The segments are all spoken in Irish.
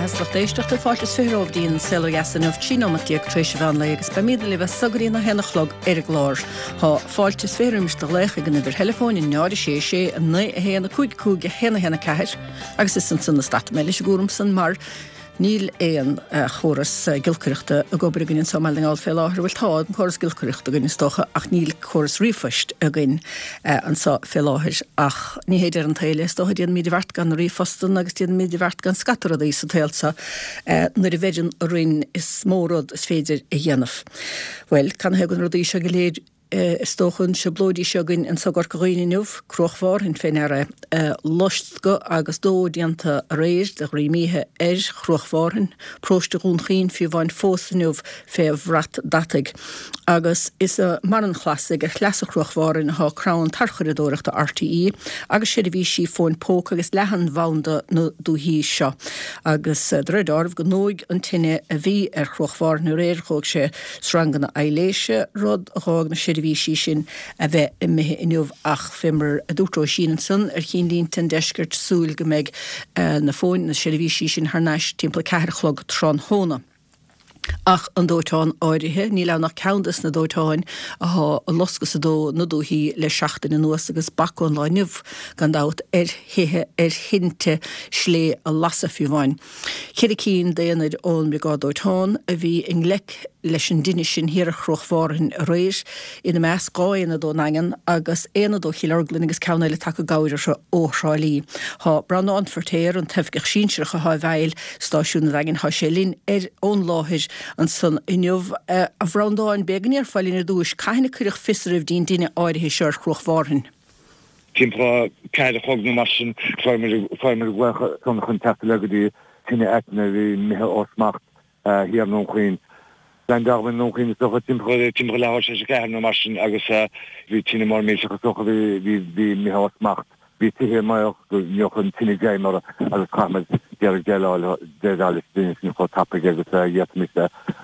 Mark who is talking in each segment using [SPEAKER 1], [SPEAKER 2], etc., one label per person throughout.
[SPEAKER 1] beatha is lucht éisteachta, fáilte is 20 romhaibh dtí'n Saol Ó Dheas inniu, 13 nóimeat tar éis an mheán lae agus beimídne libh as so go dtí an 1 a chlog ar an gclár. Tá fáilte is 20 roimis do ghlaoch ag an uimhir theileafóin 0 6 6 9 1 5 5 1 1 4 agus is ansan a stadfaidh mé leis an gcúram san mar Níl aon chóras giolcaireachta ag obair againn anseo i mBaile na nGall fé láthair. Bhuel, tá an córas giolcaireachta againn is dócha ach níl córas ríomhphoist againn anseo fé láthair. Ach ní hé deireadh an tsaoil é, is dócha. Déanaimid a bheart gan na ríomhphostanna agus déanaimid a bheart gan scata rudaí sa tsaol seo nuair a bheireann orainn is mó rud is féidir a dhéanamh. Bhuel, canathaobh na rudaí seo go léir? Is dócha an trioblóidí seo againn anso i gCorca Dhuibhne inniu, Cruach Mhárthain fé ndeara é. Loscadh agus dó déanta aréir de dhroim oíche ar Chruach Mhárthain, paróiste Dhún Chaoin fiú amháin fós inniu fé bhrat deataigh. Agus is i mBarr an Chlasaigh ar shleasa Chruach Mhárthain athá crann tarchuradóireachta RTÉ agus seirbhísí fóin póca agus leathanbhanda na dúichí seo. Agus de réir deáraimh go ndóigh an tine a bhí ar Chruach Mhárthain aréir dhóigh sé sranganna aibhléise, rud a dh'fhág na seirbhísí sin a bheith imithe inniu ach fé mar a dúirt Róisín ansan ar Chinnlínte an Deiscirt, súil go mbeidh na fóin, na seirbhísí sin thar n-ais timpeall 4 a chlog tráthnóna. Ach an dóiteán áirithe, níl ann ach ceann des na dóiteáin athá ag loscadh is ag dó na dúichí le seachtain anuas agus bac ón lá inniu, gan dabht, ar thithe, ar thinte slé a lasadh fiú amháin. Cheithre cinn d'aonaid ón mBriogáid Dóiteáin a bhí i ngleic leis an dtine sin thiar ar Chruach Mhárthain aréir, ina measc 2 aonad ón nDaingean agus aonad ó Chill Orglan agus ceann eile tagtha i gcabhair orthu ó Thrá Lí. Thá Breandán Feirtéar, an t-oifigeach sinsearach athá i bhfeighil stáisiún an Daingin, thá sé linn ar ón láthair ansan inniu. A Bhreandáin, b'fhéidir go ndéarfá linn ar dtúis, cathain a cuireadh fios oraibh dtí'n dtine áirithe seo ar Chruach Mhárthain?
[SPEAKER 2] Timpeall 4 a chlog nó mar sin, fuair muid glaoch chun teacht le go dtí tine aitinn a bhí imithe ó smacht thiar i nDún Chaoin. Leaindeáil muid i nDún Chaoin is dócha timpeall leathuair tar éis a ceathair nó mar sin agus bhí tine mór millteach is dócha bhí imithe ó smacht. Bhí tithe i mbaol go ngeobhadh an tine greim orthu agus chaith muid d'iarraidh déileáil leis an dtine sin chomh tapaidh agus a d'fhéadfaimis.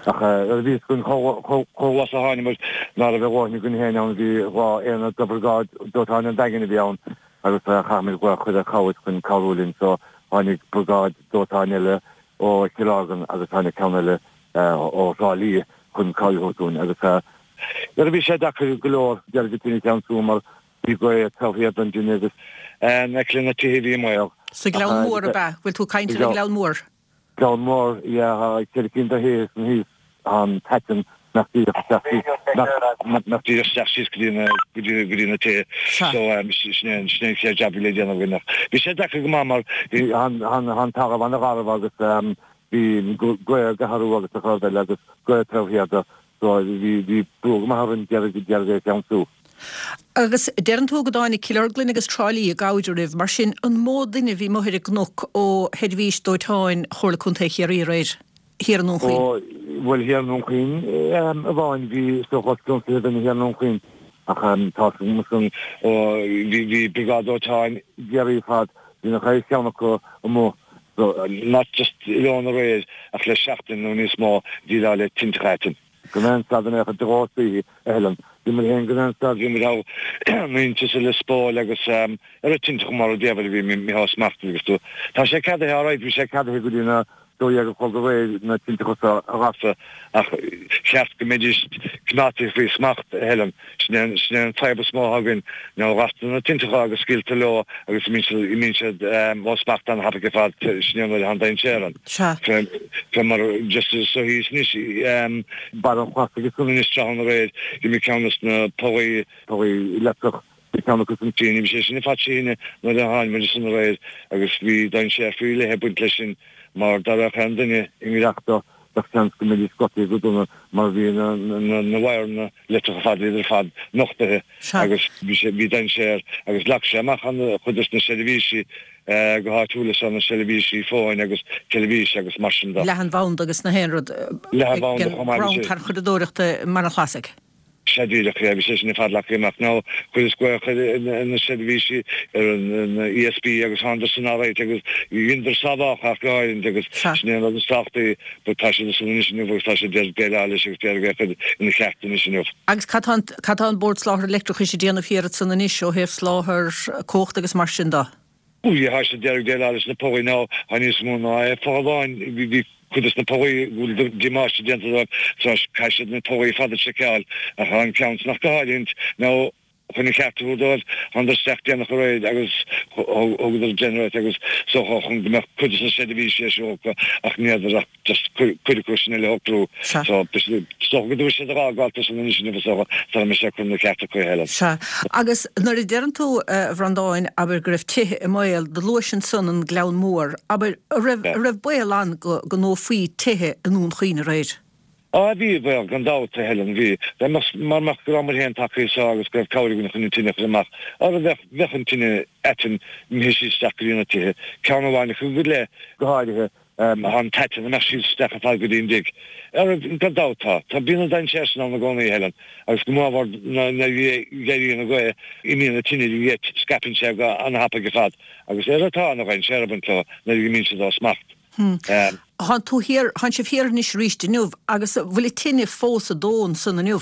[SPEAKER 2] Ach nuair a bhí fhios againn chomh luath is a tháinig muid ná raibh a dhóthain againn féin ann, bhí 2 aonad de bhriogáid dóiteáin an Daingin a bhí ann agus chaith muid glaoch a chur ar chabhair chun cabhrú linn so tháinig briogáid dóiteáin eile ó Chill Orglan agus tháinig ceann eile ó Thrá Lí chun cabhair a thabhairt dúinn agus nuair a bhí sé deacair go leor d'iarraidh an tine a cheansú mar Bhí gaoth taobh thiar den dtine agus in aice le na tithe a bhí i mbaol.
[SPEAKER 1] Sa Ghleann Mór, ab ea? Bhfuil tú ag caint ar an Ghleann Mór?
[SPEAKER 2] Gleann Mór, yeah, tá ceithre cinn de thithe san thíos, tá an t-aiteann nach díreach isteach síos, nach díreach isteach síos go dtí na, go dtí, go dtí na tithe. So, sin é an, sin é an chéad jab a bhí le déanamh againn ach bhí sé deacair go maith mar bhí, tá an, tá an talamh an-gharbh agus bhí gaoth ag athrú agus a chur eile agus gaoth taobh thiar de. So bhí, bhí brú go maith orainn d'iarraidh, d'iarraidh é a cheansú.
[SPEAKER 1] Agus deireann tú go dtáinig Cill Orglan agus Trá Lí i gcabhair oraibh, mar sin an mó duine a bhí amuigh ar an gcnoc ó sheirbhís dóiteáin Chomhairle Contae Chiarraí aréir, thiar i nDún Chaoin?
[SPEAKER 2] Ó, bhuel thiar i nDún Chaoin amháin bhí is dócha os cionn 20 duine thiar i nDún Chaoin ach tá san, ó bhí, bhí briogáid dóiteáin Chiarraí ar fad, bhí nach raibh ceann acu amuigh So, not just oileán aréir ach le seachtain nó níos mó déileáil le tintreach aitinn. Gan aon stad in aon chor de dhóigh saoithe a Helen. Bhí muid féin gan aon stad, bhí muid thall in Inse Lios Póil agus ar an tintreach mar a déarfá a bhí imithe ó smacht agus tú. Tá sé ceadaithe alright, bhí sé ceadaithe go dtí na 12 a chlog aréir na tintreacha seo a ghasadh ach cheart go mbeidís coimeádta faoi smacht, a Helen. Sin é sin é an fadhb is mó atá againn, ná gastar na tintreacha agus scaoiltear leo agus imíonn siad ó smacht an-thapaidh ar fad, sin é an nuair atá an dainséar ann.
[SPEAKER 1] Sea.
[SPEAKER 2] Fé fé mar just so thíos anois, Barr an Chlasaigh is anois tráthnóna aréir, d'imigh ceann des na pollaí, pollaí leictreach, bhí ceann acu san tine, bhí sé sin ar fad trí thine nuair a tháinig muid ansan aréir agus bhí dainséar faoi leith ag baint leis sin mar dá raghadh aon duine i ngiorracht dó bheadh seans go mbeidís gortaithe go dona mar bhí na na wire-anna leictreach ar fad, iad ar fad nochtaithe agus bhí sé, bhí dainséar agus leag sé amach an-chuid des na seirbhísí go háitiúil is na seirbhísí fóin agus teilifíse agus mar sin de.
[SPEAKER 1] Leathanbhanda agus na haon rud
[SPEAKER 2] Leathanbhanda chomh maith,
[SPEAKER 1] bhí sé. Crann tarchuradóireachta i mBarr an Chlasaigh.
[SPEAKER 2] Sea díreach, yeah, bhí sé sin ar fad leagtha amach. Now, chuireas glaoch ar na seirbhísí, ar an ESB agus thánadar san alright agus dheineadar sábhálacha ach go háirithe agus sin é an rud is tábhachtaí but tá siad ansan anois inniu agus tá siad ag déileáil leis agus d'iarraidh é a chur ina cheart anois inniu.
[SPEAKER 1] Agus cad tá an, cad tá an Bord Soláthair Leictreachais ag déanamh thiar ansan anois ó thaobh soláthar cumhachta agus mar sin de?
[SPEAKER 2] Bhuel, tá siad ag déileáil leis na pollaí now, tá níos mó ná é folláin, bhí cuid des na pollaí go bhfuil damáiste déanta dóibh, so caithfidh siad na pollaí ar fad a seiceáil, ach tá an ceann san ach go háirithe now chun an cheart a thabhairt dóibh, thánadar isteach déanach aréir agus thugadar generator agus so chun go mbeadh cuid des na seirbhísí ar siúl acu ach ní fhéadfar ach just cuid acu sin eile a shocrú.
[SPEAKER 1] Sea.
[SPEAKER 2] So, is dócha go dtabharfaidh siad a dh'fhágáil san anois inniu is dócha, sara mbeidh sé curtha ina cheart acu a Helen.
[SPEAKER 1] Sea. Agus nuair a deireann tú, a Bhreandáin, abair go raibh tithe i mbaol, do luais ansan an Gleann Mór, abair, a raibh, a raibh baol ann go, go ndófaí tithe i nDún Chaoin aréir?
[SPEAKER 2] Á, bhí baol, gan dabht, a Helen, bhí. Dá mbeadh, mara mbeadh go rabhamar féin tagtha anseo agus go raibh cabhair againn chun an tine a chur amach, ara bheadh, bheadh an tine aiteann imithe síos isteach go dtí na tithe, ceann amháin acu go leith, go háirithe. Tá an t-aiteann imithe síos isteach ar fad go dtí an dtigh. Ara, gan dabht tá. Tá bíonn an dainséar sin ann i gcónaí, a Helen, agus go mórmhór nuair a éiríonn an ghaoth, imíonn an tine de gheit, scaipeann sé go an-thapaidh ar fad. Agus ara tá ana-dhainséar ag baint leo nuair a imíonn siad ó smacht.
[SPEAKER 1] Thánn tú thiar, thánn sibh thiar anois arís inniu, agus an bhfuil an tine fós ag dó ansan inniu?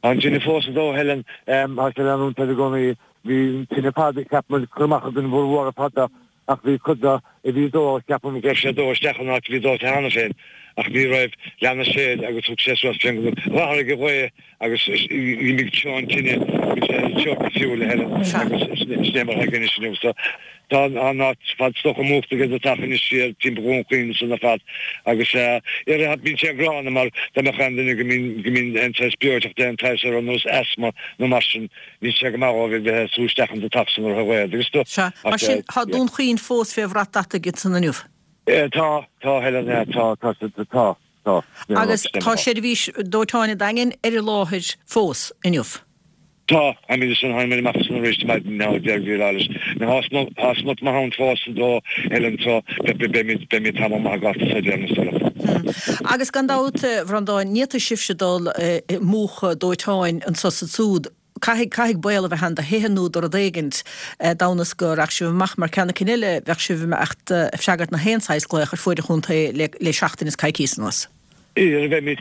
[SPEAKER 2] Tá an tine fós ag dó, a Helen. Tá sé ag leanúint air i gcónaí. Bhí an tine ar fad, cheap muid, curtha amach againn mhór mhór ar fad. Ach bhí cuid de a bhí ag dó, ceapaim go raibh sé ag dó isteach in áit a bhí dóite cheana féin, ach ní raibh, lean sé air agus thug sé suas fén l'athraigh an ghaoth agus d'imigh treo an tine, bhí sé ag treo cosúil le Helen agus sin é mar atá anois inniu. So tá an áit ar fad is dócha múchta ag an deatach anois siar timpeall Dhún Chaoin ansan ar fad agus eh bíonn sé gránna mar dá mbeadh aon duine go mbíonn go mbíonn aon saghas breoiteacht aon tsaghas ar nós asthma nó mar sin Níl sé go maith dhóibh a bheith ag sú isteach an deatach san ar a ghaoth agus do.
[SPEAKER 1] Sea. Mar sin, tá Dún Chaoin fós fé bhrat deataigh ansan inniu.
[SPEAKER 2] Tá, tá, Helen, tá, tá, tá, tá.
[SPEAKER 1] Agus tá seirbhís dóiteáin an Daingin ar an láthair fós inniu.
[SPEAKER 2] Tá, táimid ansan, tháinig muid amach ansan arís maidin now deir Bhí Lailis. Now tá smut maith ann fós ag dó, Helen, so beimid, beimid tamall maith ag gabháil sa deireadh na
[SPEAKER 1] sula. Agus gan dabht, a Bhreandáin, ní fhéadfaidh sibhse dul ag múchadh dóiteáin anso is ansúd. Caithfidh, caithfidh baol a bheith ann do thithe nó do rud éigint, d'fhonn is go rachadh sibh amach, mar ceann eicínt eile, bheadh sibh ag imeacht ag freagairt na haon saghas glaoch ar fuaid an chontae le, le seachtain is coicíos anuas.
[SPEAKER 2] Ara bheimid,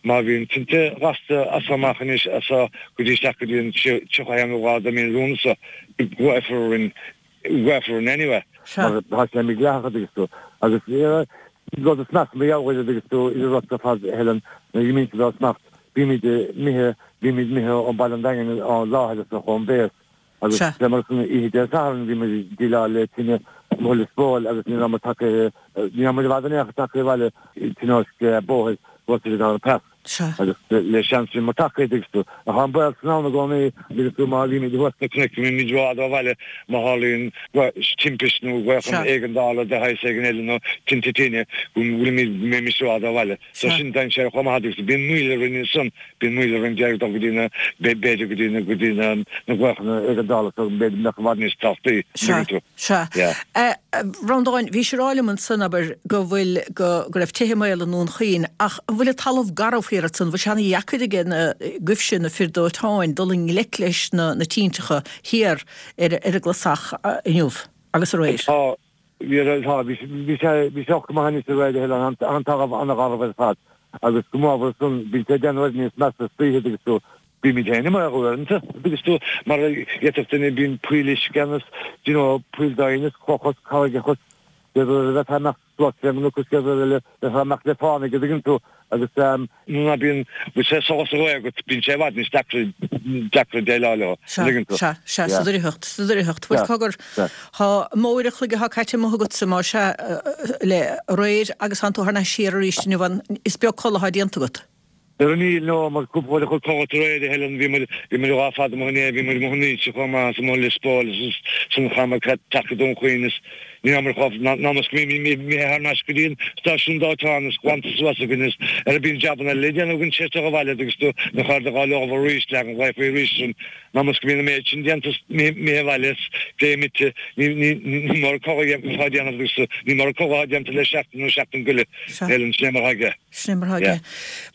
[SPEAKER 2] má bhíonn tinte gasta as so amach anois, as so go dtí isteach go dtí an 31 lá de mhí Lúnasa, glaofar orainn glaofar orainn anyway mar tá sé mídhleathach an dtuigeann tú agus rud is measa mar gheall air an dtuigeann tú idir rud ar fad Helen nuair a imíonn siad ó smacht bímid imithe bímid imithe ó Baile an Daingin ó láthair is ón bhéas agus fé mar san oíche Dé Sathairn bhí muid ag déileáil le tine amuigh i Lios Póil agus ní raibh muid tagtha ní raibh muid i bhfad in aon chor tagtha abhaile tionóisc bóthair bhuail siad ar an pass.
[SPEAKER 1] Sea.
[SPEAKER 2] Agus le seans bhí muid tagtha, an dtuigeann tú. Ach tá an baol san ann i gcónaí, an dtuigeann tú, má bhímid thuas sna cnoic, go mbímid rófhada ó bhaile, má tharlaíonn timpist nó glaoch éigeandála de shaghas éigin eile nó tinte tine, go bhfuilimid, go mbeimis rófhada ó bhaile. So sin dainséar chomh maith, agus bíonn moill orainn ansan, bíonn moill orainn d'iarraidh dul go dtí na, b'fhéidir go dtí na, go dtí na, na glaochanna éigeandála so b'fhéidir go mbeadh i bhfad níos tábhachtaí, an
[SPEAKER 1] Sea.
[SPEAKER 2] dtuigeann tú.
[SPEAKER 1] Sea.
[SPEAKER 2] Yeah.
[SPEAKER 1] A Bhreandáin, bhís ag rá liom ansan, abair, go bhfuil, go, go raibh tithe i mbaol i nDún Chaoin, ach an bhfuil an talamh garbh thiar ansan, an bhfuil sé ana-dheacair aige na, agaibhse, na fir dóiteáin, dul i ngleic leis na, na tinteacha thiar ar, ar an gClasach inniu agus aréir?
[SPEAKER 2] Tá, bhí, tá, bhí, bhí sé, bhí sé go maith anois aréir, a Helen, an, an talamh an-gharbh ar fad agus go mór ansan, bíonn sé ag déanamh oiread níos measa istoíche agus tú, Bímid féin i mbaol uaireanta, an dtuigeann tú, mar d'fhéadfadh duine, bíonn poill uisce ann is, do you know, poill doimhne is clocha is carraigeacha is, chéad uair a bheifeá ag imeacht suas fén gcnoc is chéad uair eile bheifeá ag imeacht le fánaidh, an dtuigeann tú, agus ehm, nuair ná bíonn, bhfuil sé solas réidh agat, bíonn sé i bhfad níos deacra, deacra déileáil leo,
[SPEAKER 1] Sea,
[SPEAKER 2] an dtuigeann tú.
[SPEAKER 1] sea, sea, sa
[SPEAKER 2] Yeah.
[SPEAKER 1] doircheacht, sa doircheacht. Bhuel,
[SPEAKER 2] Sea,
[SPEAKER 1] cogar,
[SPEAKER 2] sea.
[SPEAKER 1] thá mó uair a chloig athá caite amuigh agatsa, más ea, le aréir agus thánn tú thar n-ais siar arís inniu, an, is beag codladh athá déanta agat.
[SPEAKER 2] Ara níl, no, mar cúpla uair a chloig codlata aréir, a Helen, bhí muid, bhí muid lá fada amuigh inné, bhí muid amuigh in Inse chomh maith, is amuigh i Lios Póil, is ansan chaith muid teacht go Dún Chaoin, is ní rabhamar chomh, ná mas go mbímid imithe thar n-ais go dtí an stáisiún dóiteáin is glanta suas againn is ara bíonn jabanna eile le déanamh againn tar éis dul abhaile agus tú na cairde dhá leomh arís, leagan ghlaofaí arís ann, ná mas go mbíonn an méid sin déanta is imithe abhaile is gé imithe, ní, ní, ní mór codladh atá déanamh agus ní mór codladh atá déanta le seachtain nó seachtain go leith, Helen, sin é mar atá aige.
[SPEAKER 1] Sin é mar atá aige.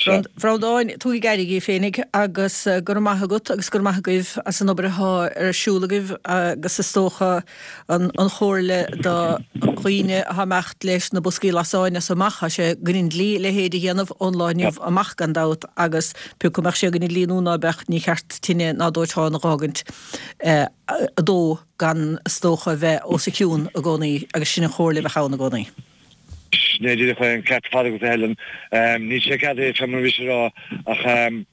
[SPEAKER 1] A Bhreandáin, tugaigí aire dhíbh féinig agus go raibh maith agat agus go raibh maith agaibh as an obair athá ar siúl agaibh agus is dócha an chomhairle do. Do dhaoine atá ag imeacht leis na boscaí lasáin as so amach, tá sé i gcoinne an dlí a leithéid a dhéanamh ón lá inniu amach gan dabht agus pé acu mbeadh sé i gcoinne an dlí nó ná beadh, ní cheart tine ná dóiteán a dh'fhágaint ag dó gan is dócha a bheith os a chionn i gcónaí agus sin an chomhairle a bheadh ann i gcónaí.
[SPEAKER 2] Sin é díreach é an ceart ar fad agat a Helen. Níl sé ceadaithe fé mar a bhís ag rá ach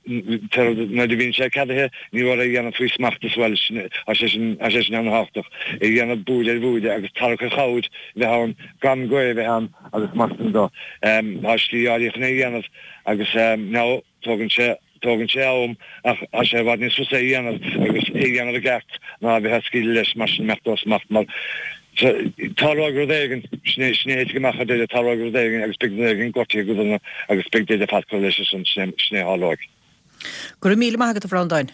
[SPEAKER 2] nuair a bhíonn sé ceadaithe ní mór é a dhéanamh faoi smacht as well. Tá sé sin tá sé sin ana-thábhachtach. É a dhéanamh buaile ar bhuaile agus tarrac ar chabhair a bheith ann gan gaoth a bheith ann agus mar sin de. Tá slí áirithe chun é a dhéanamh agus now Tógann sé, tógann sé am ach tá sé i bhfad níos fusa é a dhéanamh agus é a dhéanamh i gceart ná a bheith ag scaoileadh leis mar sin imeacht ó smacht mar tarlóidh rud éigin, sin é, sin é a thitfidh amach ar deireadh, tarlóidh rud éigin agus beidh duine éigin gortaithe go dona agus beidh daoine ar fad curtha leis ansin, sin é, sin é a tharlóidh.
[SPEAKER 1] Go raibh míle maith agat a Bhreandáin.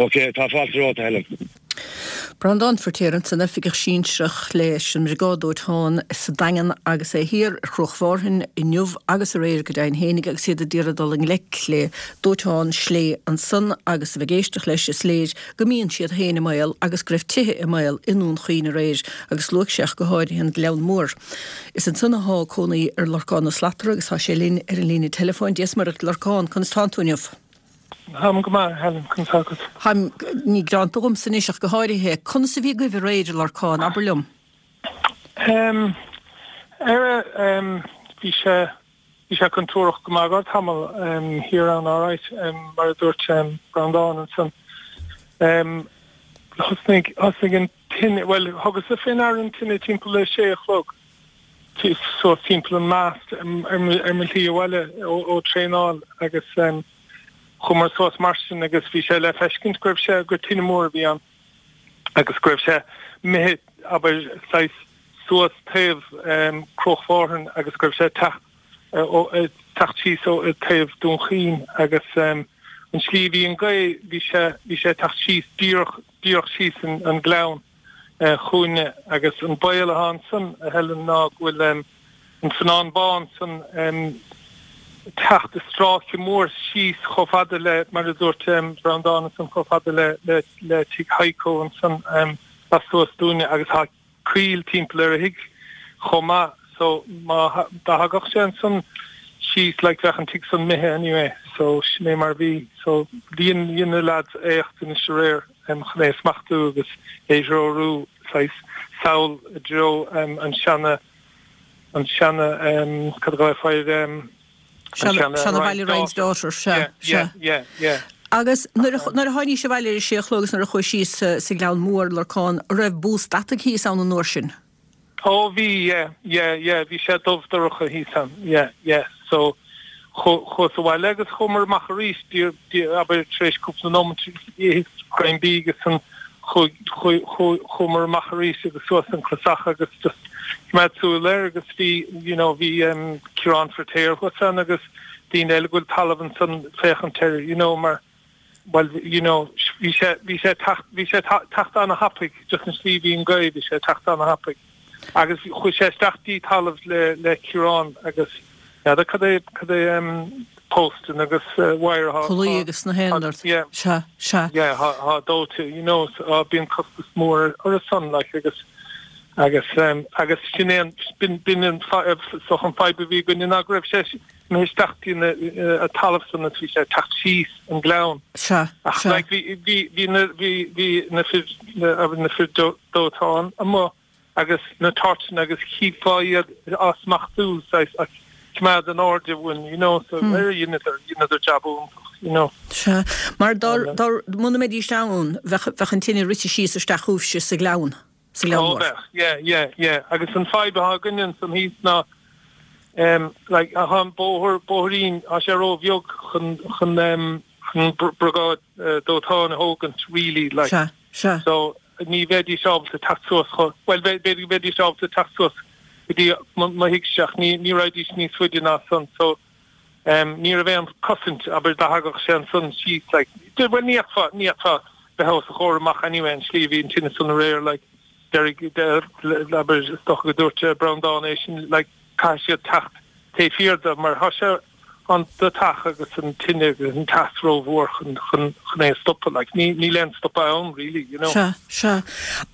[SPEAKER 2] Ok, tá fáilte romhat, a Helen.
[SPEAKER 1] Breandán Feirtéar ansan, Oifigeach Sinsearach leis an mBriogáid Dóiteáin sa Daingean agus é thiar ar Chruach Mhárthain inniu agus aréir go deimhin fhéinig agus iad ag iarraidh dul i ngleic le dóiteán slé ansan agus a bheith ag éisteacht leis is léir go mbíonn siad féin i mbaol agus go raibh tithe i mbaol i nDún Chaoin aréir agus luaigh sé ach go háirithe an Gleann Mór. Is ansan athá cónaí ar Lorcán Ó Slatara agus tá sé linn ar an líne teileafóin. Dia 's Muire dhuit Lorcán, conas tánn tú inniu?
[SPEAKER 3] Táim go maith, a Helen, conas tá agat?
[SPEAKER 1] Táim, ní gearánta dhomsa anois ach go háirithe. Conas a bhí agaibh aréir, a Lorcáin, abair liom?
[SPEAKER 3] Em, ar, em, bhí sé, bhí sé contúirteach go maith go tamall, em, thiar ann alright, em, mar a dúirt, em, Breandán ansan. Em, thosnaigh, thosnaigh an tine, bhuel, thugas-sa fé ndeara an tine timpeall a sé a chlog. suas timpeall an mast ar mo shlí abhaile ó traenáil agus chuamar suas mar sin agus bhí sé le feiscint go raibh sé, gur tine mór a bhí ann agus go raibh sé imithe, abair, saghas suas taobh Cruach Mhárthain agus go raibh sé ag teacht síos ó taobh Dún Chaoin agus an slí a bhí an gaoth, bhí sé, bhí sé ag teacht síos díreach, díreach síos an gleann. chugainne agus an baol atá ansan, a Helen, ná go bhfuil an Feannán Bán san ag teacht i stráice mór síos chomh fada le, mar a dúirt Breandán ansan, chomh fada le le tigh Heiko ansan lastuas dúinne agus tá coill timpeall ar a thigh chomh maith so má dá thagadh sé ansan síos like bheadh an tigh san imithe anyway so sin é mar a bhí so dhein dhein na lads éacht anois aréir. chun é a smachtú agus é threorú saghas sall i dtreo an seana, an seana, cad a ghlaofá air, an
[SPEAKER 1] seana. Seana bhaile Ryan's Daughter, sea, sea.
[SPEAKER 3] Yeah, yeah.
[SPEAKER 1] Agus nuair a, nuair a tháinís abhaile ar a sé a chlog agus nuair a chuaigh síos sa Ghleann Mór, Lorcán, an raibh bús deataigh thíos ann an uair sin?
[SPEAKER 3] Ó bhí, yeah, yeah, yeah, bhí sé dubh dorcha thíos ann, yeah, yeah. So chuas abhaile agus chuamar amach arís, abair tar éis cúpla nóimint, itheas greim bídh agus ansan chuaigh, chuaigh, chuaigh, chuamar amach arís agus suas an clasach agus just coimeád súil air agus bhí, you know, bhí um, Ciarán Feirtéar thuas ann agus daoine eile go bhfuil talamh ansan féachaint air, you know, mar Bhuel, you know, bhí sé, bhí sé teacht, bhí sé teacht ana-thapaidh, just an slí a bhí an gaoth, bhí sé teacht ana-thapaidh. Agus chuaigh sé isteach dtí talamh le, le Ciarán agus n'fheadar cad é, cad é em posting agus wire
[SPEAKER 1] atá, Pullaí agus na haon rud.
[SPEAKER 3] Yeah.
[SPEAKER 1] Sea, sea.
[SPEAKER 3] Yeah, thá, thá dóite, you know, so á bíonn costas mór ar a son, like, agus, agus em, agus sin é an, b'in, b'in an so an fadhb a bhí againne ná go raibh sé, imithe isteach dtí an talamh san agus bhí sé ag teacht síos an gleann.
[SPEAKER 1] Sea,
[SPEAKER 3] Ach
[SPEAKER 1] sea.
[SPEAKER 3] like bhí, bhí, bhí na, bhí, bhí na fir, na, na fir dóiteáin amuigh agus na torchanna agus chífeá iad á smachtú saghas ag coimeád in airde uainn, you know, so hmm. dheineadar, dheineadar jab iontach, you know.
[SPEAKER 1] Sea, mar dá, dá, muna mbeidís ann, bheadh, bheadh an tine rite síos isteach chugaibhse sa ghleann. sa Ghleann
[SPEAKER 3] Ó
[SPEAKER 1] Mór.
[SPEAKER 3] bheadh, yeah, yeah, yeah. Agus an fadhb atá againne ansan thíos ná em like tá an bóthar, bóithrín, tá sé ró-bheag chun, chun em chun briogáid dóiteáin a thógaint really like.
[SPEAKER 1] Sea, sea.
[SPEAKER 3] So ní bheidís ábalta teacht suas chomh, bhuel b'fhéidir go mbeidís ábalta teacht suas go dtí mo thighse ach ní, ní raghaidís níos faide ná san so em ní raibh aon cosaint abair dá thagadh sé ansan síos like bhuel ní fhéadfá, ní fhéadfá bheith os a chomhair amach anyway an slí a bhí an tine san aréir like déarfaidh abair is dócha go dúirt Breandán é sin like caithfidh siad teacht taobh thiar de mar tá sé. an deatach agus an tine agus an teas rómhór chun chun chun é a stopadh like ní níl aon stopadh ann really you know.
[SPEAKER 1] Sea, sea.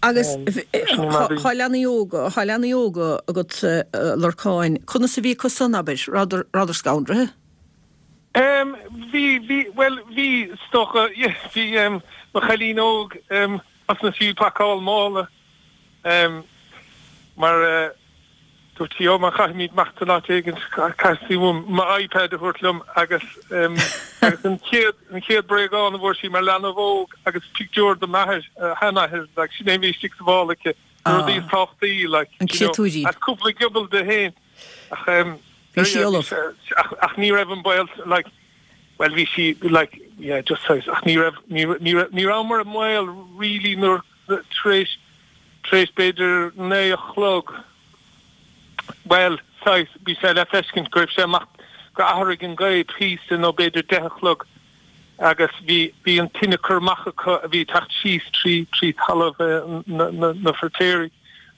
[SPEAKER 1] Agus thá leanaí óga, thá leanaí óga agat a Lorcáin, conas a bhí acu san, abair, rabhadar, rabhadar scanraithe?
[SPEAKER 3] Em bhí, bhí, bhuel bhí is dócha, yeah, bhí em mo chailín óg em thosnaigh sí ag pacáil mála em mar eh Dúirt sí, Ó, má chaithfimid imeacht in áit éigin, caithfidh uaim m'iPad a thabhairt liom agus agus an chéad an chéad bréagán a bhfuair sí mar leanbh óg agus pictiúr de m'athair, a sheanathair, like, sin é a bhí istigh sa mhála aici, na rudaí is tábhachtaí, like,
[SPEAKER 1] An
[SPEAKER 3] you know,
[SPEAKER 1] créatúirín.
[SPEAKER 3] agus cúpla giobal di féin. Ach
[SPEAKER 1] em, Bhí sí ullamh.
[SPEAKER 3] ach ach ní raibh an baol, like, bhuel bhí sí, like, yeah, just saghas, ach ní raibh, ní ní raibh, ní rabhamar i mbaol really nuair, tar éis Tar éis b'fhéidir 9 a chlog, bhuel, saghas, bhí sé le feiscint go raibh sé amach, gur athraigh an ghaoth píosa nó b'fhéidir 10 a chlog agus bhí, bhí an tine curtha amach acu a bhí ag teacht síos trí, trí talamh na, na, na Feirtéaraigh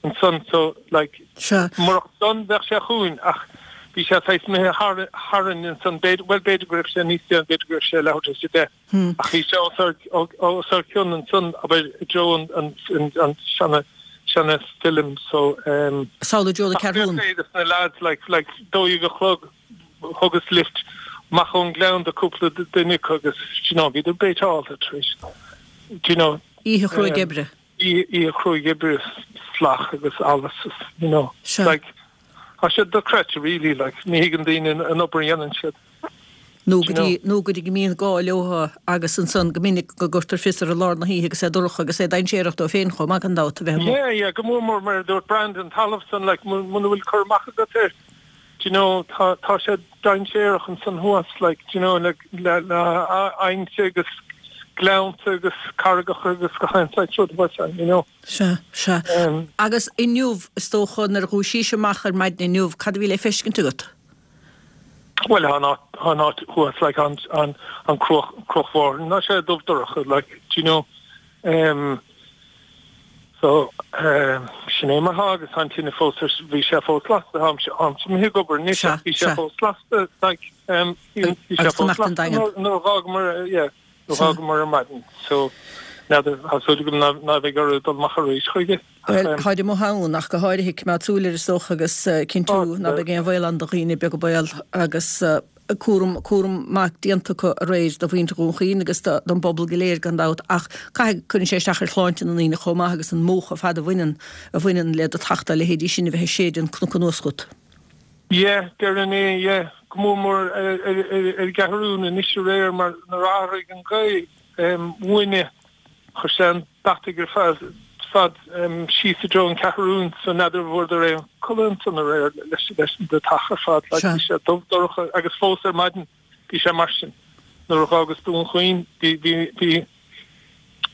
[SPEAKER 3] ansan so like,
[SPEAKER 1] Sea.
[SPEAKER 3] murach san bheadh sé chugainn ach bhí sé saghas imithe thar, tharainn ansan, b'fhéidir, bhuel b'fhéidir go raibh sé níos déanaí, b'fhéidir go raibh sé leathuair tar éis a deich. Ach bhí sé os ár cionn ansan, abair, i dtreo an seana, seana film so.
[SPEAKER 1] Samhlaigh i dtreo na
[SPEAKER 3] Ceathrún. Ach bhí na lads, like, like, 12 a chlog, thugas lift amach ón Gleann do cúpla duine acu agus, do you know, bhíodar béiteálta tar éis, do you know.
[SPEAKER 1] Oíche chruaidh oibre.
[SPEAKER 3] Oíche chruaidh oibre, slach agus allas, you know.
[SPEAKER 1] Sea.
[SPEAKER 3] Like, tá sé dochreidte really, like, ní thuigeann daoine an obair a dhéanann siad.
[SPEAKER 1] Nó go dtí, nó go dtí go mbíonn gá leo agus ansan go minic go gcuirtear fios orthu i lár na hoíche agus é dorcha agus é dainséarach dóibh féin chomh maith gan dabht a bheith
[SPEAKER 3] amuigh. Yeah, yeah, go mór mór mar a dúirt Brandon, talamh san, like, muna bhfuil cur amach agat air, do you know, tá, tá sé dainséarach ansan thuas, like, do you know, le, le, le aibhneacha agus gleannta agus carraigeacha agus gach aon saghas rud thuas ann, you know.
[SPEAKER 1] Sea, sea. Agus inniu, is dócha, nuair a dhúisís amach ar maidin inniu, cad a bhí le feiscint agat?
[SPEAKER 3] Bhuel, tá an áit, tá an áit thuas, like, an, an, an cruach, Cruach Mhárthain, tá sé dubh dorcha, like, do you know, em, so, em, sin é mar thá agus tá an tine fós ar, bhí sé fós lasta, táimse, táimse imithe ag obair anois ach bhí sé fós lasta, like, em, bhí sé fós lasta nuair, nuair a dh'fhágamar, yeah. D'fhágamar ar maidin so n'fheadar, tá súil agam ná beidh orthu dul amach arís chuige.
[SPEAKER 1] Bhuel, táid amuigh ann ach go háirithe, coimeád súil air is dócha agus cinntiú ná beidh aon bhaol ann do dhaoine, beag an baol agus cúram, cúram maith déanta acu aréir do mhuintir Dhún Chaoin agus don bpobal go léir gan dabht ach caithfidh, cuireann sé isteach ar shláinte na ndaoine chomh maith agus an múch ar fad a bhaineann, a bhaineann le deatach dá leithéidí sin a bheith ag séideadh an cnoc anuas chugat.
[SPEAKER 3] Yeah, déarfainn é, yeah. Go mór mór ar an gCeathrún anois aréir mar nuair a athraigh an ghaoth uainne chuir sé an deatach ar fad fad síos i dtreo an Cheathrún so n'fheadar an bhfuaireadar aon codladh ansan aréir leis leis an deatach ar fad like bhí sé dubh dorcha agus fós ar maidin bhí sé mar sin nuair a dh'fhágas Dún Chaoin bhí bhí bhí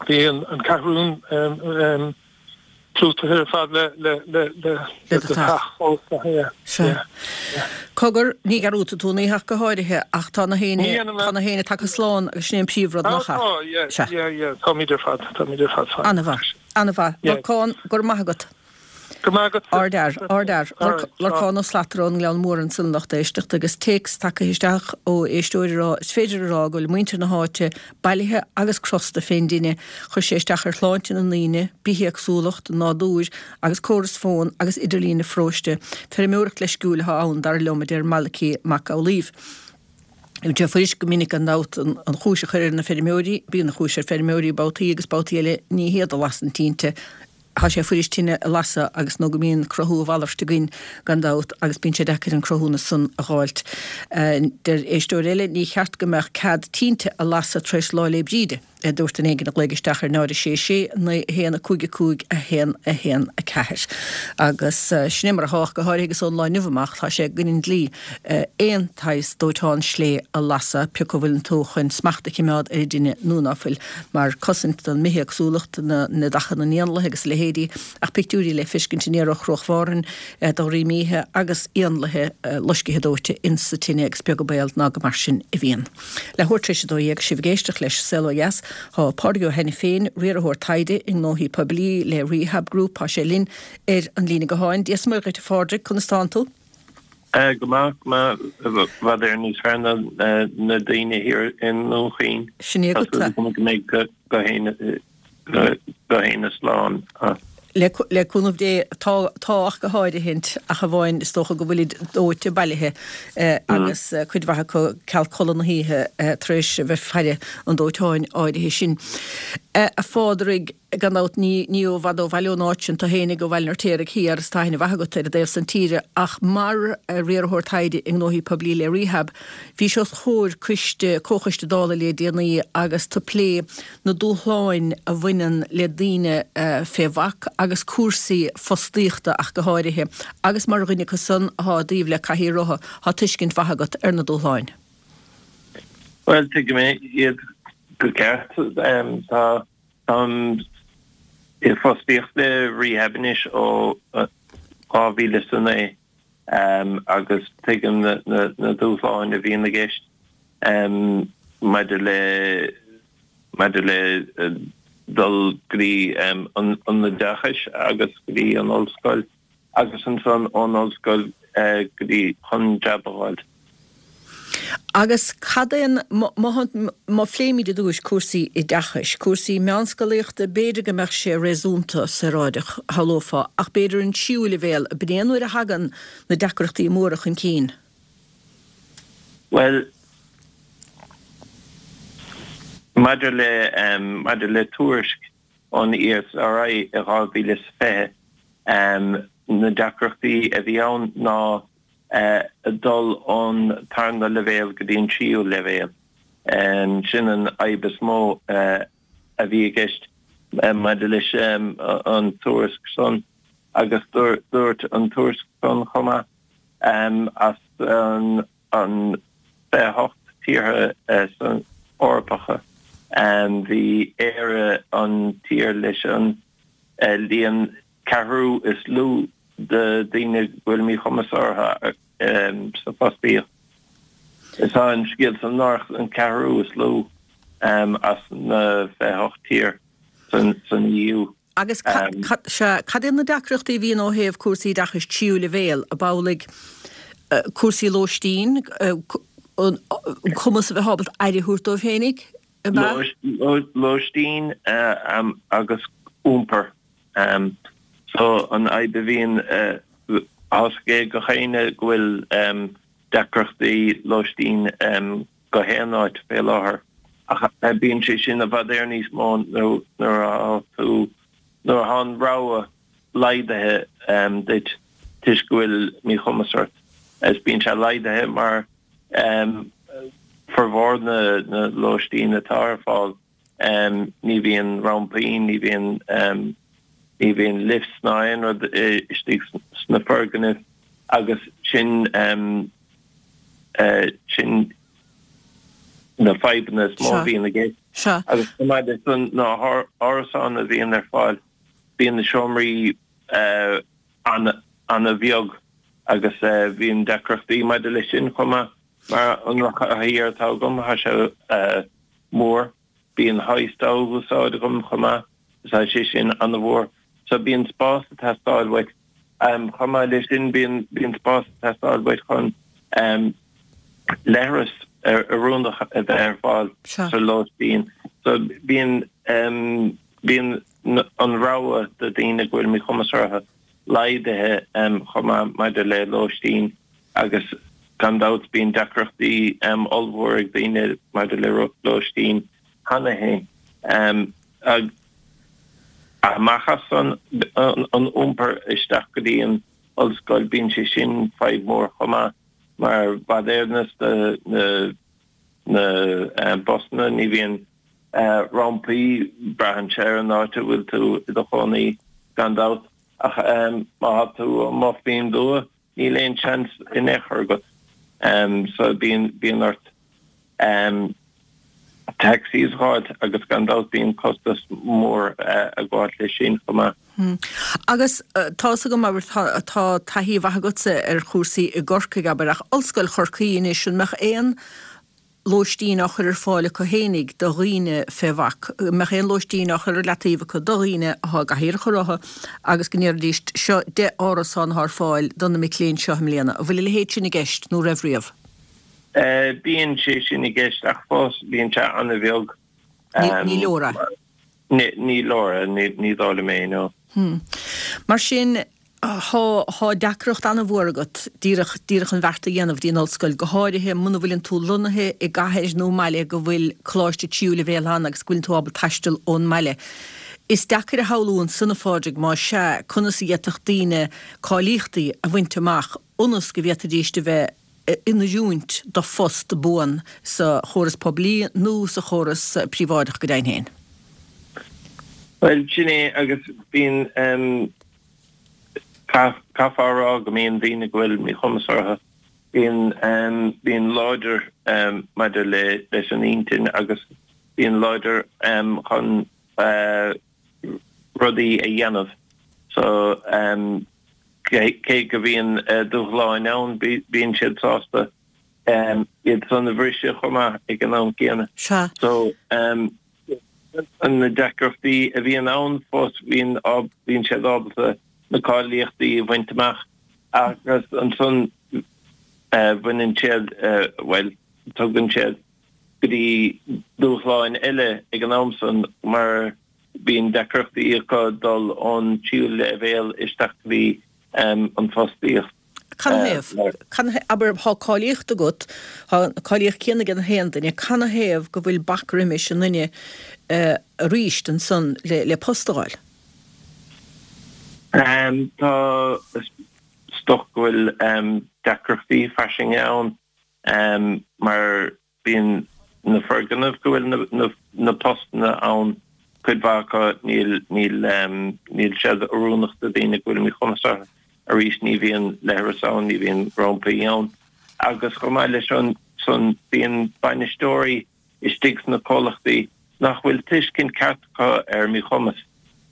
[SPEAKER 3] bhí an an Ceathrún clúdaithe ar fad le le le le le deatach fós yeah
[SPEAKER 1] yeah yeah. Cogar, ní dhearúdfaidh tú an oíche ach go háirithe, ach tá na héinne, tá na héinne tagtha slán agus sin é an príomhrud, nach ea?
[SPEAKER 3] Tá, yeah, yeah, yeah, táimid ar fad, táimid ar fad
[SPEAKER 1] fine. An-mhaith, an-mhaith. Lorcán, go raibh maith agat.
[SPEAKER 3] Go raibh maith agat.
[SPEAKER 1] Ardfhear, ardfhear. Lorcán Ó Slatara ón nGleann Mór ansan lucht éisteachta agus téacs tagtha isteach ó éisteoir ag rá, is féidir a rá go bhfuil muintir na háite bailithe agus crosta fén dtine. Chuir sé isteach ar shláinte na ndaoine, bithéagsúlacht, an nádúir agus córas fón agus idirlín an pharóiste. Feirmeoireacht leisciúil atá ann, dar liom, a deir Malachy Mac Amhlaoibh. Bíonn sé fuirist go minic gan dabht an chúis a chur ar na feirmeoirí, bíonn an chúis ar feirmeoirí babhtaí agus babhtaí eile ní hiad a lasann tinte. Tá sé fuirist tine a lasadh agus nó go mbíonn cruthú a mhalairt againn gan dabht agus bíonn sé deacair an cruthúnas san a dh'fháilt. Deir éisteoir eile, ní cheart go mbeadh cead tinte a lasadh tar éis Lá 'le Bríde, a dúirt duine éigin a ghlaoigh isteach ar 0 6 6 9 1 5 5 1 1 4. Agus sin é mar atá ach go háirithe agus ón lá inniu amach tá sé i gcoinne an dlí aon tsaghas dóiteán slé a lasadh, pé acu bhfuileann tú chun smacht a chimeád ar an dtine nó ná fuil, mar cosaint don mbithéagsúlacht, na neadacha na n-éanlaithe agus a leithéidí, ach pictiúirí le feiscint aniar ó Chruach Mhárthain de dhroim oíche agus éanlaithe loiscithe dóite ins sa tine agus beag an baol ná go mar sin a bhíonn. Leathuair tar éis a 12, sibh ag éisteacht leis Saol Ó Dheas, tá Pádraig Ó hAiniféin, riarthóir taighde i ngnóthaí poiblí le Rehab Group, tá sé linn ar an líne gutháin. Dia 's Muire dhuit a Phádraig, conas tánn tú?
[SPEAKER 4] Go maith, go maith, i bhfad Éireann níos fearr ná na daoine thiar i nDún Chaoin.
[SPEAKER 1] Sin é agat.
[SPEAKER 4] Tá súil agam go mbeidh gach éinne slán.
[SPEAKER 1] Le cúnamh Dé, tá, tá ach go háirithint, ach amháin is dócha go bhfuilid dóite bailithe agus cuid mhaith acu ceal codladh na hoíche tar éis a bheith ag faire an dóiteáin áirithe sin. A Phádraig, Gan dabht, ní ní ó bhfad ó bhaile ón áit sin tú fhéinig, ó Bhaile an Fheirtéaraigh thiar, is tá aithne mhaith agat ar an dtaobh san tíre, ach mar riarthóir taighde i ngnóthaí poiblí le Rehab, bhís os comhair coiste, comhchoiste Dála le déanaí agus tú ag plé na dúshláin a bhaineann le daoine fé bhac agus cúrsaí fostaíochta ach go háirithe, agus mar dhuine acu san athá i dtaobh le cathaoir rotha, thá tuiscint mhaith agat ar na dúshláin.
[SPEAKER 4] Bhuel, tuigim iad go ceart. Tá. Táim i bhfostaíocht le Rehab anois ó 2009 agus tuigim na dúshláin a bhíonn i gceist maidir le maidir le dul go dtí an oideachais agus go dtí an ollscoil. agus ansan ón ollscoil go dtí chun jab a fháil.
[SPEAKER 1] Agus cad é an, má phléimid i dtúis cúrsaí oideachais, cúrsaí meánscolaíochta, b'fhéidir go mbeadh sé réasúnta saoráideach, shamhlófá, ach b'fhéidir an tríú leibhéal, ab in é an uair a thagann na deacrachtaí móra chun cinn?
[SPEAKER 4] Bhuel, maidir le, maidir le tuairisc ón ESRI i 2020. Na deacrachtaí a bhí ann ná dul ón tarna leibhéal go dtí an tríú leibhéal. Sin an fhadhb is mó a bhí i gceist maidir leis an tuairisc san agus dúirt an tuairisc san chomh maith as an an 28 tíortha Eorpacha, bhí Éire an tír leis an líon ceathrú is lú de daoine go bhfuil míchumas orthu sa fostaíocht. Tá an scéal san náireach, an ceathrú is lú as na 28 tír san EU.
[SPEAKER 1] Agus sea, cad iad na deacrachtaí a bhíonn ó thaobh cúrsaí oideachais tríú leibhéal, ab amhlaidh cúrsaí lóistín, an cumas a bheith ábalta aire a thabhairt dóibh féinig,
[SPEAKER 4] ab ea? Lóistín agus iompar. So an fhadhb a bhíonn, tá 's ag gach éinne go bhfuil deacrachtaí lóistín gach aon áit fé láthair ach bíonn sé sin i bhfad Éireann níos mó nuair atá tú, nuair atá an rogha laghdaithe duit toisc go bhfuil míchumas ort. Is bíonn sé laghdaithe mar formhór na lóistín atá ar fáil ní bhíonn rampaí, ní bhíonn ní bhíonn lifts ná aon rud istigh sna foirgnimh agus sin sin na fadhbanna is mó a bhíonn i gceist. Agus chomh maith leis san na hárasáin a bhíonn ar fáil, bíonn na seomraí an-bheag agus bíonn deacrachtaí maidir leis sin chomh maith mar an rothair atá agam, tá sé mór. Bíonn hoist á úsáid agam chomh maith, tá sé sin an-mhór. So bíonn spás ag teastáil uait. Chomh maith leis sin bíonn bíonn spás ag teastáil uait chun leithreas oiriúnach a bheith ar fáil sa lóistín. So bíonn bíonn an rogha do daoine go bhfuil míchumas orthu laghdaithe chomh maith maidir le lóistín. Agus gan dabht bíonn deacrachtaí ollmhór ag daoine maidir le lóistín cheana féin. Amach as san, an iompar isteach go dtí an ollscoil, bíonn sé sin fadhb mhór chomh maith mar i bhfad Éireann na na busanna, ní bhíonn rampaí, braitheann sé ar an áit a bhfuil tú i do chónaí gan dabht ach má tá tú amuigh faoin dtuath, Níl aon seans in aon chor agat so bíonn bíonn ort taxis a fháilt agus gan dabht bíonn costas mór ag gabháil leis sin chomh maith.
[SPEAKER 1] Agus tá's agam, abair, tá taithí mhaith agatsa ar chúrsaí i gCorcaigh, abair, ach Ollscoil Chorcaí anois, an mbeadh aon. lóistín á chur ar fáil acu fhéinig do dhaoine fé bhac, go mbeadh aon lóistín á chur ar leataobh acu do dhaoine athá i gcathaoireacha rotha agus go ndéarfaidís seo 10 árasán athá ar fáil do na mic léinn seo i mbliana. An bhfuil a leithéid sin i gceist nó raibh riamh?
[SPEAKER 4] Bíonn sé sin i gceist ach fós bíonn sé an-bheag.
[SPEAKER 1] Ní leor é.
[SPEAKER 4] Ní leor é, ní dóigh liom é, no.
[SPEAKER 1] Mar sin, Thá deacracht an-mhór agat díreach, díreach an bheart a dhéanamh dtí an ollscoil, go háirithe muna bhfuileann tú lonnaithe i gcathair nó i mbaile go bhfuil coláiste tríú leibhéal ann agus go bhfuileann tú ábalta taisteal ón mbaile. Is deacair a shamhlú ansan, a Phádraig, más ea, conas a d'fhéadfadh daoine cáilíochtaí a bhaint amach ionas go bhféadfaidíst a bheith in oiriúint do phost buan sa chóras poiblí nó sa chóras príobháideach go deimhin féin.
[SPEAKER 4] Bhuel, sin é agus bíonn, caithfear a rá go mbíonn daoine go bhfuil míchumas orthu, bíonn, bíonn láidir maidir le, leis an intinn agus bíonn láidir chun rudaí a dhéanamh. So, cé go bhíonn dúshláin ann, bíonn siad sásta iad san a bhriseadh chomh maith ag an am céanna.
[SPEAKER 1] Sea.
[SPEAKER 4] So, na deacrachtaí a bhíonn ann fós, bíonn, bíonn siad ábalta na cáilíochtaí a bhaint amach agus ansan bhaineann siad, bhuel, tugann siad go dtí dúshláin eile ag an am san mar bíonn deacrachtaí acu dul ón tríú leibhéal isteach go dtí an fostaíocht.
[SPEAKER 1] Canathaobh? Canathaobh? Abair, thá cáilíocht agat, thá an cáilíocht céanna ag an haon duine, canathaobh go bhfuil bac roimis an nduine aríst ansan le post a fháil?
[SPEAKER 4] Tá, is dócha go bhfuil deacrachtaí fairsinge ann mar Bíonn na foirgnimh go bhfuil na postanna ann, cuid mhaith acu, níl, níl, níl siad oiriúnach do daoine go bhfuil míchumas orthu. Arís, ní bhíonn leithreas ann, ní bhíonn rampaí ann. Agus chomh maith leis san, bíonn bainisteoirí istigh sna comhlachtaí nach bhfuil tuiscint ceart acu ar míchumas.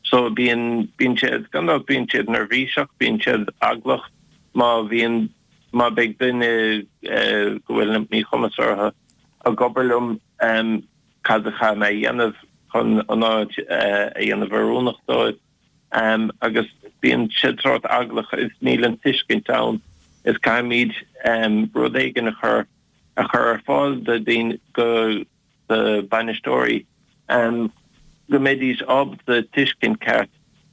[SPEAKER 4] So bíonn, bíonn siad, gan dabht, bíonn siad neirbhíseach, bíonn siad eaglach má bhíonn, má beidh duine go bhfuil míchumas orthu ag obair liom, cad a chaithfidh mé a dhéanamh chun an áit a dhéanamh oiriúnach dóibh? Agus bíonn siad sórt eaglach is níl an tuiscint ann is caithfimid rud éigin a chur a chur ar fáil do daoine go do bainisteoirí go mbeidís ábalta tuiscint ceart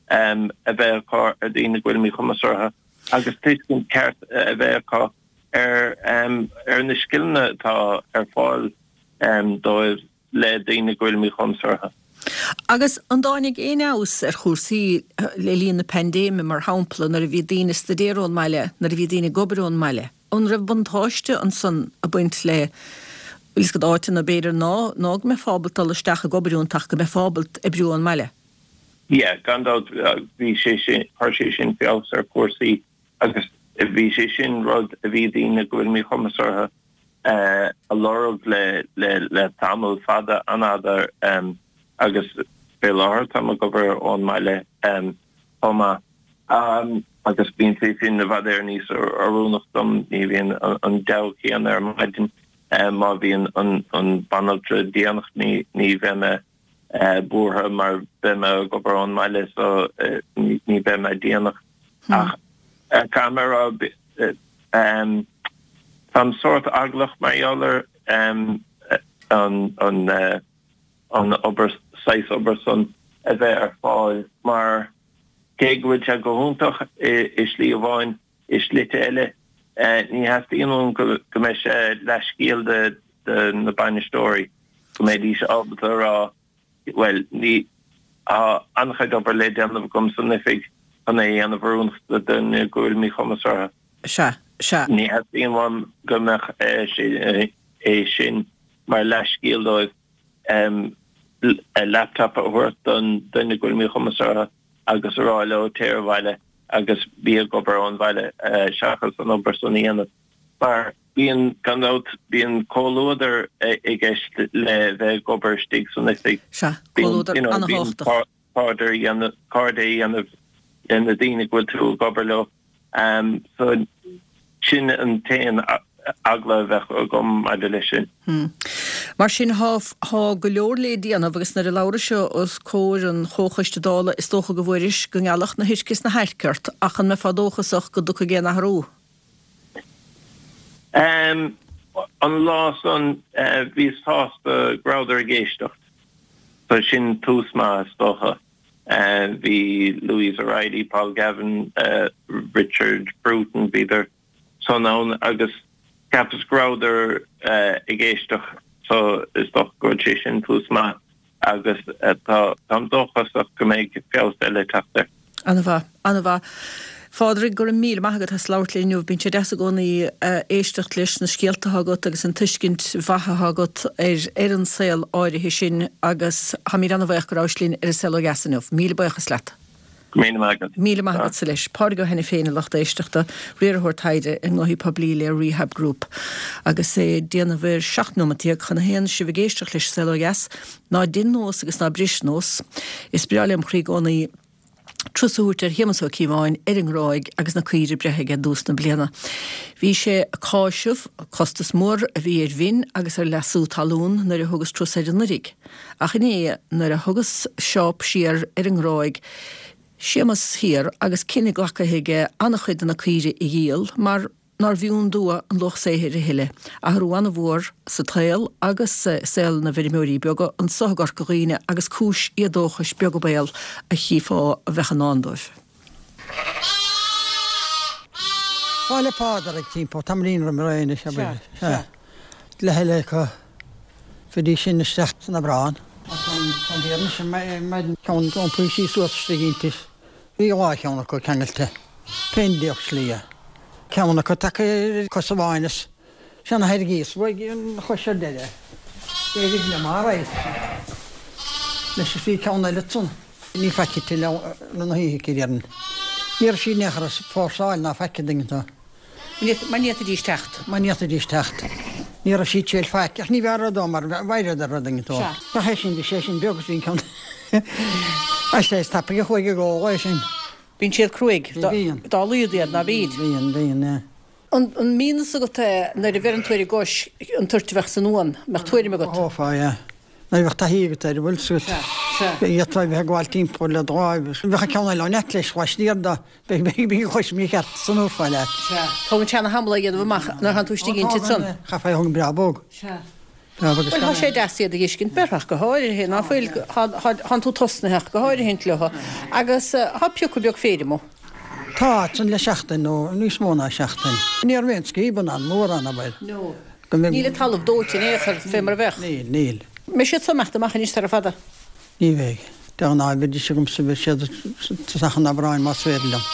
[SPEAKER 4] a bheith acu ar daoine go bhfuil míchumas orthu agus tuiscint ceart a bheith acu ar ar na scileanna atá ar fáil dóibh le daoine go bhfuil míchumas orthu.
[SPEAKER 1] Agus an dtáinig aon fheabhas ar chúrsaí le linn na paindéime, mar shampla, nuair a bhí daoine ag staidéar ón mbaile, nuair a bhí daoine ag obair ón mbaile? An raibh buntáiste ansan ag baint le, bhfuil fhios agat, áiteanna b'fhéidir ná ná go mbeifeá ábalta dul isteach ag obair iontu ach go mbeifeá ábalta oibriú ón mbaile?
[SPEAKER 4] Yeah, gan dabht bhí sé sin, chuir sé sin feabhas ar chúrsaí agus bhí sé sin rud a bhí daoine go bhfuil míchumas orthu a lorg le le le tamall fada, an-fhada agus fé láthair táim ag obair ón mbaile chomh maith. Agus bíonn sé sin i bhfad Éireann níos oiriúnach dom, ní bhíonn an deabhadh céanna ar maidin má bhíonn an banaltra déanach, ní bheidh mé buartha mar beidh mé ag obair ón mbaile so ní bheidh mé déanach. Ach caithfidh mé a rá, táim sórt eaglach mar gheall ar an an obair, saghas obair san a bheith ar fáil mar cé go bhfuil sé go hiontach i slí amháin, i slite eile ní theastaíonn uaim go mbeidh sé leathscéal do na bainisteoirí, go mbeidís ábalta a rá bhuel ní, tá an-chuid obair le déanamh agam san oifig chun é a dhéanamh oiriúnach do dhuine go bhfuil míchumas orthu.
[SPEAKER 1] Sea, sea.
[SPEAKER 4] Ní theastaíonn uaim go mbeadh sé é sin mar leathscéal dóibh. laptop a thabhairt don duine go bhfuil míchumas orthu agus a rá leo téir abhaile agus bí ag obair ón bhaile seachas an obair san a dhéanamh. Mar bíonn, gan dabht, bíonn comhluadar i gceist le bheith ag obair istigh san oifig.
[SPEAKER 1] Sea, comhluadar an-thábhachtach.
[SPEAKER 4] Cairde a dhéanamh, cairde a dhéanamh le na daoine go bhfuil tú ag obair leo. So sin an t-aon. Eagla a bheadh agam maidir leis sin.
[SPEAKER 1] Mar sin, thá, thá go leor lé déanamh agus nuair a labhrais os comhair an Chomhchoiste Dála is dócha go bhfuairis go ngealfadh na hoirc is na hairc ort ach an mbeifeá dóchasach go dtiocfaidh aon athrú?
[SPEAKER 4] An lá san bhíos sásta go rabhadar ag éisteacht so sin tús maith is dócha. Bhí Louise O'Reilly, Paul Gavin, Richard Bruton, bhíodar san ann agus cheapas go rabhadar ag éisteacht so is dócha go bhfuil sé sin tús maith agus táim dóchasach go mbeidh feabhas eile ag teacht air.
[SPEAKER 1] Ana-mhaith. Ana-mhaith. Phádraig, go raibh míle maith agat as labhairt linn inniu. Bíonn sé deas i gcónaí éisteacht leis na scéalta atá agat agus an tuiscint mhaith atá agat ar ar an saol áirithe sin agus táimid ana-bhaoch go rabhais linn ar An Saol Ó Dheas inniu. Míle buíochas leat.
[SPEAKER 4] Go raibh míle maith agat.
[SPEAKER 1] Míle maith agatsa leis. Pádraig Ó hAiniféin, a lucht éisteachta, riarthóir taighde i ngnóthaí poiblí le Rehab Group. Agus é ag déanamh ar 17 nóimeat chun a haon, sibh ag éisteacht leis An Saol Ó Dheas. Ná dein nós agus ná bris nós. Is breá lem chroí i gcónaí turas a thabhairt ar Shéamus Ó Cíobháin ar an nGráig agus na caoire breithe aige i dtús na bliana. Bhí sé ag cáiseamh costas mór a bhí ar mhin agus ar leasú talún nuair a thugas turas air anuiridh. Ach inné nuair a thugas seáp siar ar an nGráig, Séamus thiar agus cinneadh glactha aige an-chuid de na caoirigh a dhíol mar nár bhfiú dua an luach saothair a thuilleadh. Athrú an-mhór sa tsaol agus i saol na bhfeirmeoirí beaga anso i gCorca Dhuibhne agus cúis éadóchais beag an baol a chífeá a bheadh i ndán dóibh.
[SPEAKER 5] Lá 'le Pádraig timpeall tamaillín roimh ré anois, abair. Sea. Leath eile acu bhídís sin isteach san Aibreán. An deireanach sin maidin ceann iompaithe sí suas istigh inti. Bhí dhá cheann acu ceangailte fén dtaobh slighe. Ceann acu tagtha ar cos amháin is seana thairgíos uaidh an chois ar deireadh. D'éirigh liom alright leis is bhí ceann eile ansan. Ní faic tuilleadh na hoíche aici déarfainn. Ní raibh sí in aon chor ag fórsáil ná faic an dtuigeann tú.
[SPEAKER 1] Mar ní fhéadfaidís teacht.
[SPEAKER 5] Mar ní fhéadfaidís teacht. Ní raibh sí ag triail faic, ach ní bheadh rud ann mar bhfaighreadar rud éigin dó. Ach é sin, bhí sé sin beag is bhí an ceann Is é is tapaidh a chuaigh ag ól é sin.
[SPEAKER 1] Bíonn siad cruaidh dá laghad iad, ná bíd?
[SPEAKER 5] Bíonn, bíonn, yeah.
[SPEAKER 1] An mbíonn fhios agat é nuair a bheireann tú ar an gcois an toirt a bheadh san uan, mbeadh tuairim agat?
[SPEAKER 5] Mhothófá, yeah. Nuair a bheadh taithí agat air, an bhfuil 'fhios agat.
[SPEAKER 1] Sea, sea.
[SPEAKER 5] D'fhéadfá a bheith ag gabháil timpeall le do láimh. Bheadh an ceann eile ann leat leis, laistiar de. Beidh an chois mícheart san uair leat.
[SPEAKER 1] Sea. Tógann sé ana thamall é a dhéanamh amach nuair thánn tú istigh inti ansan.
[SPEAKER 5] Chaithfeá a thógaint breá bog.
[SPEAKER 1] Sea. Breá bog is Bhuel, tá sé deas iad a dh'fheiscint, b'fhearr ach go háirithe, ná fuil, thánn tú tosnaithe ach go háirithint leo. Agus thá pioca beag féir amuigh.
[SPEAKER 5] Tá, ansan le seachtain nó níos mó ná seachtain. Ní raibh aon scríobanna ann, mórán, abair.
[SPEAKER 1] No. Níl an talamh dóite in aon chor fé mar a bheadh.
[SPEAKER 5] Níl, níl.
[SPEAKER 1] Mbeidh siad so imeacht amach anois sara fada?
[SPEAKER 5] Ní bheidh. De ghnáth bheidís agamsa, beidh siad tosach an Aibreáin más féidir liom.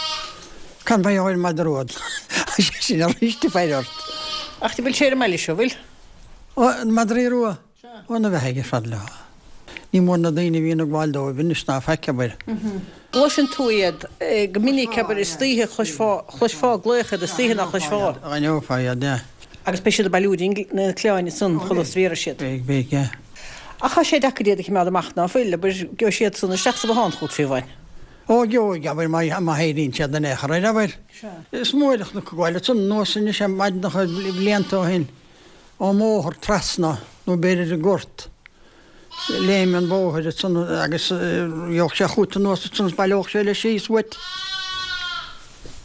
[SPEAKER 5] Cad mar gheall ar an madra rua? Tá sé sin arís ag faire ort.
[SPEAKER 1] Ach bhfuil sé ar an mbaile seo, bhfuil?
[SPEAKER 5] Ó, na madraí rua? Ó, na bheathaigh ar fad leo. Ní mór na daoine a bhíonn ag gabháil dóibh anois ná faic, abair.
[SPEAKER 1] Gcloiseann tú iad go minic, abair, istoíche, chloisfeá, chloisfeá glaoch iad istoíche ná chloisfeá.
[SPEAKER 5] D'aithneofá iad, yeah.
[SPEAKER 1] Agus beidh siad ag bailiú na cliabháin ansan chuile is bhéarfaidh siad.
[SPEAKER 5] Beidh, beidh, yeah.
[SPEAKER 1] Ach tá sé deacair iad a chimeád amach, ná fuil? Abair, gheobhaidh siad san isteach sa bhothán chugat fiú amháin.
[SPEAKER 5] Ó, gheobhaidh, abair, má, má éiríonn siad in aon chor air, abair.
[SPEAKER 1] Sea.
[SPEAKER 5] Is mór an chnoc ag gabháil ansan anuas anois ar maidineacha blianta ó shin, ón mbóthar trasna, nó b'fhéidir an gort, léim an bhóthair ansan agus gheobhadh sé chugat anuas ansan is baileodh sé leis síos uait.